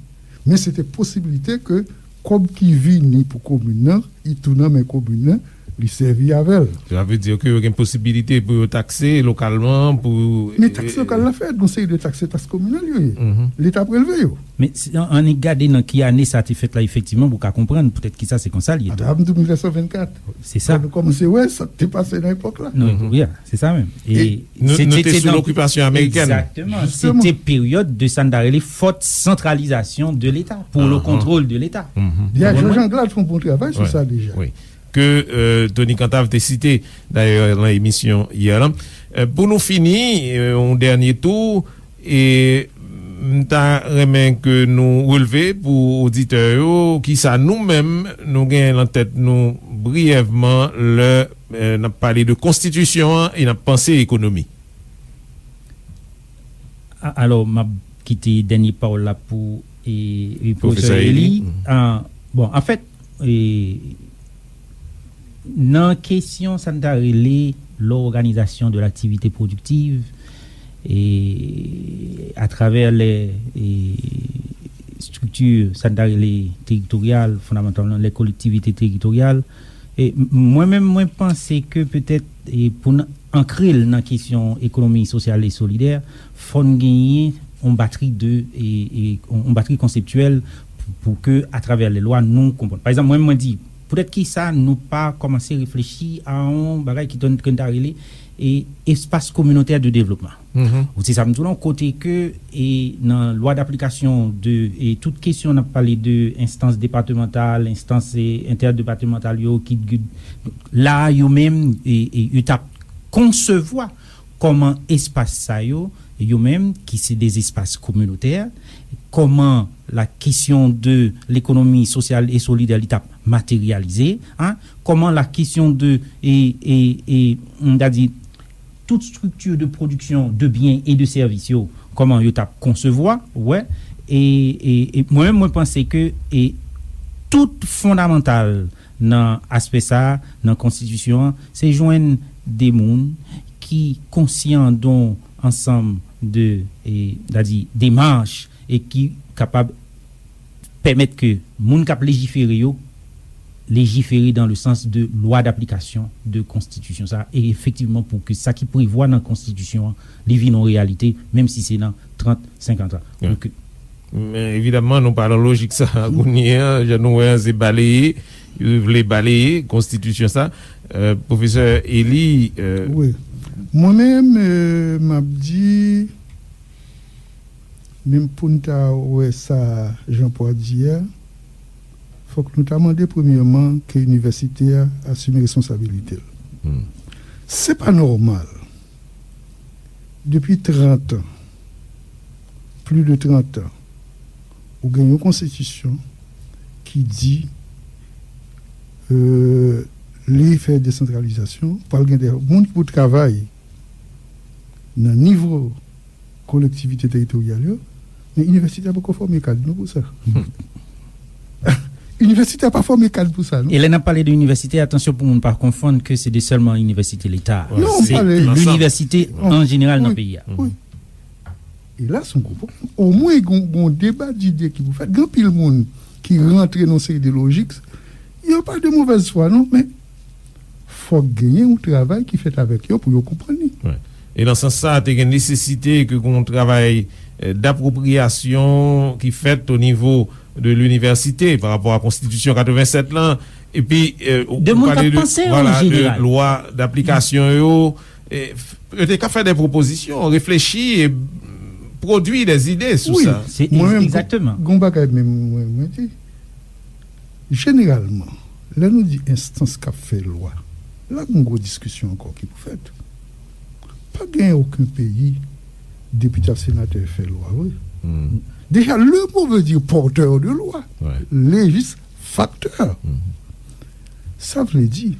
men se te posiblite ke kòb ki vini pou komin nan, li tou nan men komin nan, li sèvi avè l. Sa vle di ke yo gen posibilite pou yo takse lokalman, pou... Men taks lokal la fèt, gon seri de taks, se taks kominal yo ye. Leta prelve yo. Men si, an, annik gade nan ki ane sa te fèt la, efektivman, pou w ka konprann poutèt kisa se konsa l ye tou. Atò, m di w mil nèf san vennkat. Se sa. Fò nou kòmanse wè sa k te pase nan epòk la. Non, wi, se sa menm. E nou, nou te sou lokipasyon amerikèn. Egzakteman. Se te peryòd de sa n ta rele forte centralisation de l'État, pour le contrôle de l'État. Jean-Jean Glad fè yon bon travay sou sa deja. Ke, euh, Tony Cantave te site, dayè, nan emisyon yè lan. Euh, pou nou fini, euh, yon dènye tou, e m ta renmen ke nou relve pou oditè yo, kisa nou menm, nou gen nan tèt nou briyèvman lè, euh, n ap pale de konstitisyon an e n ap panse ekonomi. A-, alò, m ap kite dènye pawòl la pou, e, e, pwofesè Eli. Ah, bon, anfèt, e, nan kesyon sa n ta rele l'organisation de l'activité productive, e, atravè lè, e, estrikti sa n ta rele teritoryal, fondamantalman, lè kolektivite teritoryal, E m- mwen menm, mwen panse ke petèt, e pou n ankre l nan kesyon ekonomi sosyal e solidè, fò n genyen yon batri de, e, e, yon batri konseptyèl pou, pou ke, atravè lè lwa, nou konprann. Pa egzanp, mwen, mwen di, poutèt ki sa nou pa kòmanse reflechi a yon bagay ki tòn- ke n ta rele, e, espas kominotè de devlopman. Ou se sa m di w lan, kote ke, e, nan lwa daplikasyon de, e, tout kesyon n ap pale de enstans depatmantal, enstans, e, entèdepatmantal yo, ki, ki la yo menm, e, e, yo t ap konsevwa kòman espas sa yo, yo menm, ki se de espas kominotè, kòman la kesyon de lekonomi sosyal e solidè li t ap materyalize, en, kòman la kesyon de, e, e, e, m ta di, tout strikti de pwodiksyon de byen e de sèvis yo, kòman yo t ap konsevwa, ou wè, e, e, e mwen menm, mwen panse ke, e, tout fondamantal nan aspè sa a, nan konstitisyon an, se jwenn de moun ki konsyan de yon ansanm de, e, m ta di, demach, e ki kapab pèmèt ke moun k ap lejifere yo lejifere dans le sens de lwa d'application de konstitisyon sa a, e efektivman pou ke sa ki prevwa nan konstitisyon an, li vin yon reyalite, menm si se nan trant, senkant an. Wi. Donk, men evidamman, nou pa nan lojik sa a kounye a, jan nou wè an, se baleye, yo vle baleye konstitisyon sa. Euh, pwofesè Élie, euh, wi. Mwen menm, euh, m ap di, menm pou n ta wè sa Jean Paul di a, fòk nou ta mande premyèman ke inivèsite a asime responsabilite l. Se pa nòmal. Depi trant an, plis de trant an, ou gen yon konstitisyon ki di, euh, li fè desantralizasyon, pral gen de moun ki pou travay nan nivo kolektivite teritoryal yo, men inivèsite a poko fòme kad nou pou sa. Inivèsite a pa fòme kad pou sa, non. E lè n ap pale de inivèsite, atansyon pou moun pa konfonn ke se de sèlman inivèsite leta. Non, se pale linivèsite an jeneral nan peyi a. Wi. E la, se yon gwo pwoblèm. Omwen, gon, gon deba dide ki pou fèt. Gen anpil moun ki rantre nan seri de lojik. Yo pa de movèz fwa, non, men fòk genyen yon travay ki fèt avèk yo pou yo konprann li. Wi. E nan sans sa, te gen nesesite ke gon travay, eh, dapwopriyasyon ki fèt o nivo de linivèsite pa rapò a konstitisyon katrevennsèt lan. Epi, eh, ou, de moun k ap panse an jeneral. Vwala, de lwa daplikasyon yo, eh, f- yo te ka fè de pwopozisyon, reflechi e pwodui de zide sou sa. Wi, se egzakteman. Mwen menm, gon, gon bagay menm mwen, mwen di, jeneralman, lè nou di enstans k ap fè lwa, la gon gwo diskisyon ankò ki pou fèt. Pa gen okenn peyi depite ak senatè fè lwa vre. Deja, le mot veut dire porteur de loi, législateur. Sa vle di,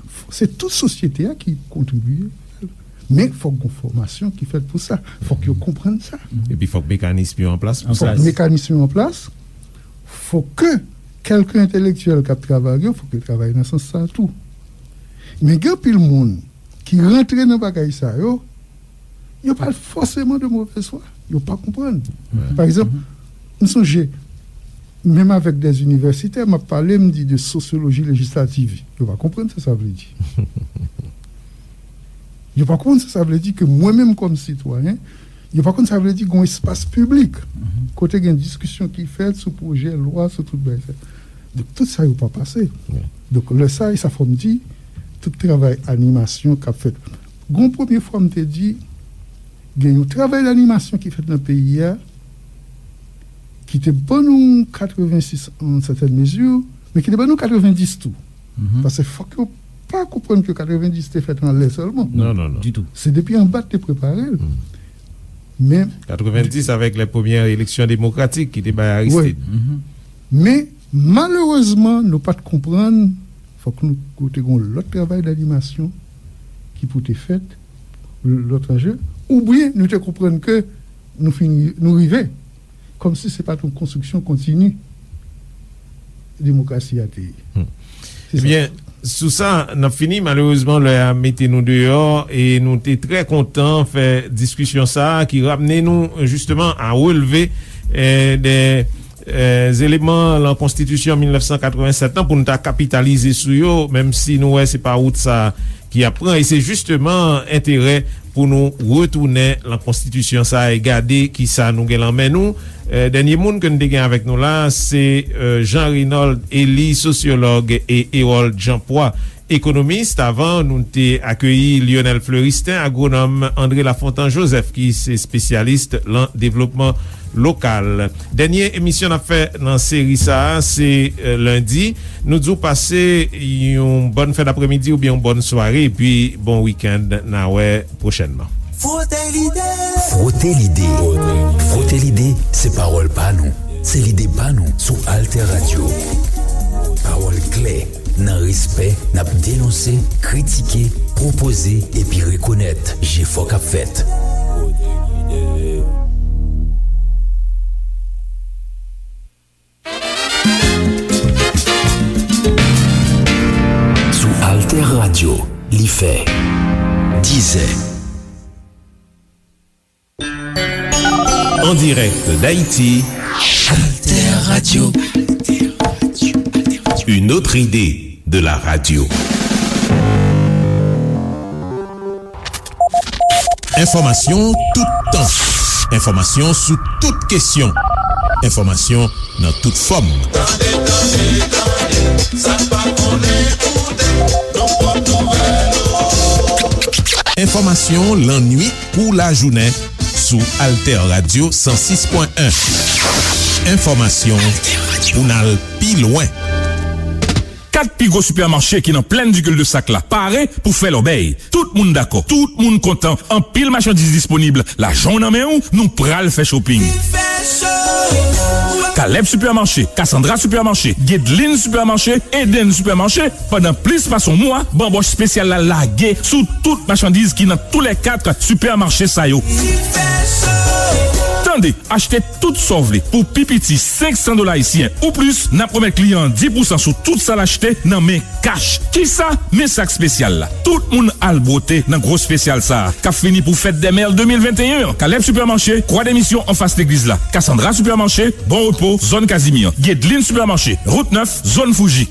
f- se tout sosyete a ki kontribye. Men fòk gon fòmasyon ki fèt pou sa. Fòk yo konprann sa. Epi fòk mekanism yo an plas pou sa. Fòk mekanism yo an plas. Fòk ke kèlke entèlektyèl k ap travay yo, fòk yo travay nan sans sa tou. Men gen anpil moun ki rantre nan bagay sa yo, yo pa fòseman de movèz fwa. Yo pa konprann. Pa egzanp, m sonje, menm avèk de inivèsitè, m ap pale, m di de sosyoloji lejislativ. Yo pa konprann sa sa vle di. Yo pa konprann sa sa vle di ke mwen menm kòm sitwayen, yo pa konn sa vle di gon espas piblik kote gen diskisyon ki fèt sou pwojè lwa, sou tout bagay sa. Donk, tout sa yo pa pase. Donk, lè sa, e sa fò m di, tout travay animasyon k ap fèt. Gon premye fwa m te di, gen yon travay d'animasyon ki fèt nan peyi a, ki te ban nou katrevensis an sètèn mezi, men ki te ban nou katrevendis tou. Paske fòk yo pa konprann ke katrevendis te fèt anlè sèlman. Non, non, non. Ditou. Se depi anba te prepare l. Men katrevendis avèk lè premyè eleksyon demokratik ki te bay Aristide. Wi. Men, malerezman, nou pa t konprann, fòk nou, te gon lòt travay d'animasyon ki pou te fèt, lòt anje, oubyen nou te konprann ke nou fini, nou rive, kòmsi se pa t yon konstriksyon kontini demokrasi a te ye. Se sa. Ebyen, sou sa, n ap fini. Malerezman, lè a mete nou deyò e nou te trè kontan fè diskisyon sa a ki ramne nou, jisteman, a relve, eh, de E, eleman lan konstitisyon mil nèf san katrevennsèt lan pou n ta kapitalize sou yo, menm si nou wè se pa wout sa ki ap pran, e se jisteman enterè pou nou retounen lan konstitisyon sa e gade kisa nou gen lan men nou. E, dènye moun ke n te gen avèk nou la, se, e, Jean Reynold Elie, sosyològ, e Herold Jean Poix, ekonomis. Avan, nou te akeyi Lionel Fleuristin, agwonòm, André Lafontant Joseph, ki se espesyalis lan devlopman lokal. Dènye emisyon n ap fè nan seri sa a, se, e, lendi. Nou di w pase yon bòn fen dapremidi oubyen yon bòn sware, epi bon wikenn, n a wè pwochènman. Fwote lide. Fwote lide. Fwote lide, se pawòl pa nou. Se lide pa nou sou Alter Radio. Pawòl klè, nan respè, n ap denonse, kritike, pwopoze, epi rekonèt jefò k ap fèt. Sou Alter Radio, li fè dizè. En direct d'Haïti, Alter Radio. Une autre idée de la radio. Enfòmasyon toutan. Enfòmasyon sou tout kesyon. Enfòmasyon nan tout fòm. Tande, tande, tande, sa n pa konnen koute, nan pòt nouvèl ou. Enfòmasyon lannwit kou lajounen sou Alter Radio san sis pwen en. Enfòmasyon pou n al pi lwen. Kat pi gwo sipèmache ki nan Plèn di Cul-de-Sac la pare pou fè lòbèy. Tout moun dakò, tout moun kontan, anpil machandiz disponib. Lajan w nan men w, nou pral fè shopping. Caleb Supermarché, Cassandra Supermarché, Guedeline Supermarché, Eden Supermarché, pandan plis pase yon mwa, banbòch espesyal la lage sou tout machandiz ki nan toulèkat sipèmache sa yo. Tande, achte tout sa w vle pou pi piti senk san dola ayisyen ou plis, n ap remèt kliyan an dis pousan sou tout sa l achte nan men kach. Kisa? Men sak espesyal la. Tout moun al bwote nan gwo espesyal sa a, k ap fini pou Fèt dè Mè de mil venteyen an. Caleb Supermarché, Kwa Demisyon anfas legliz la. Cassandra Supermarché, Bon Repo, zòn Kazimyè. Guedeline Supermarché, Wout nèf, zòn Fouji.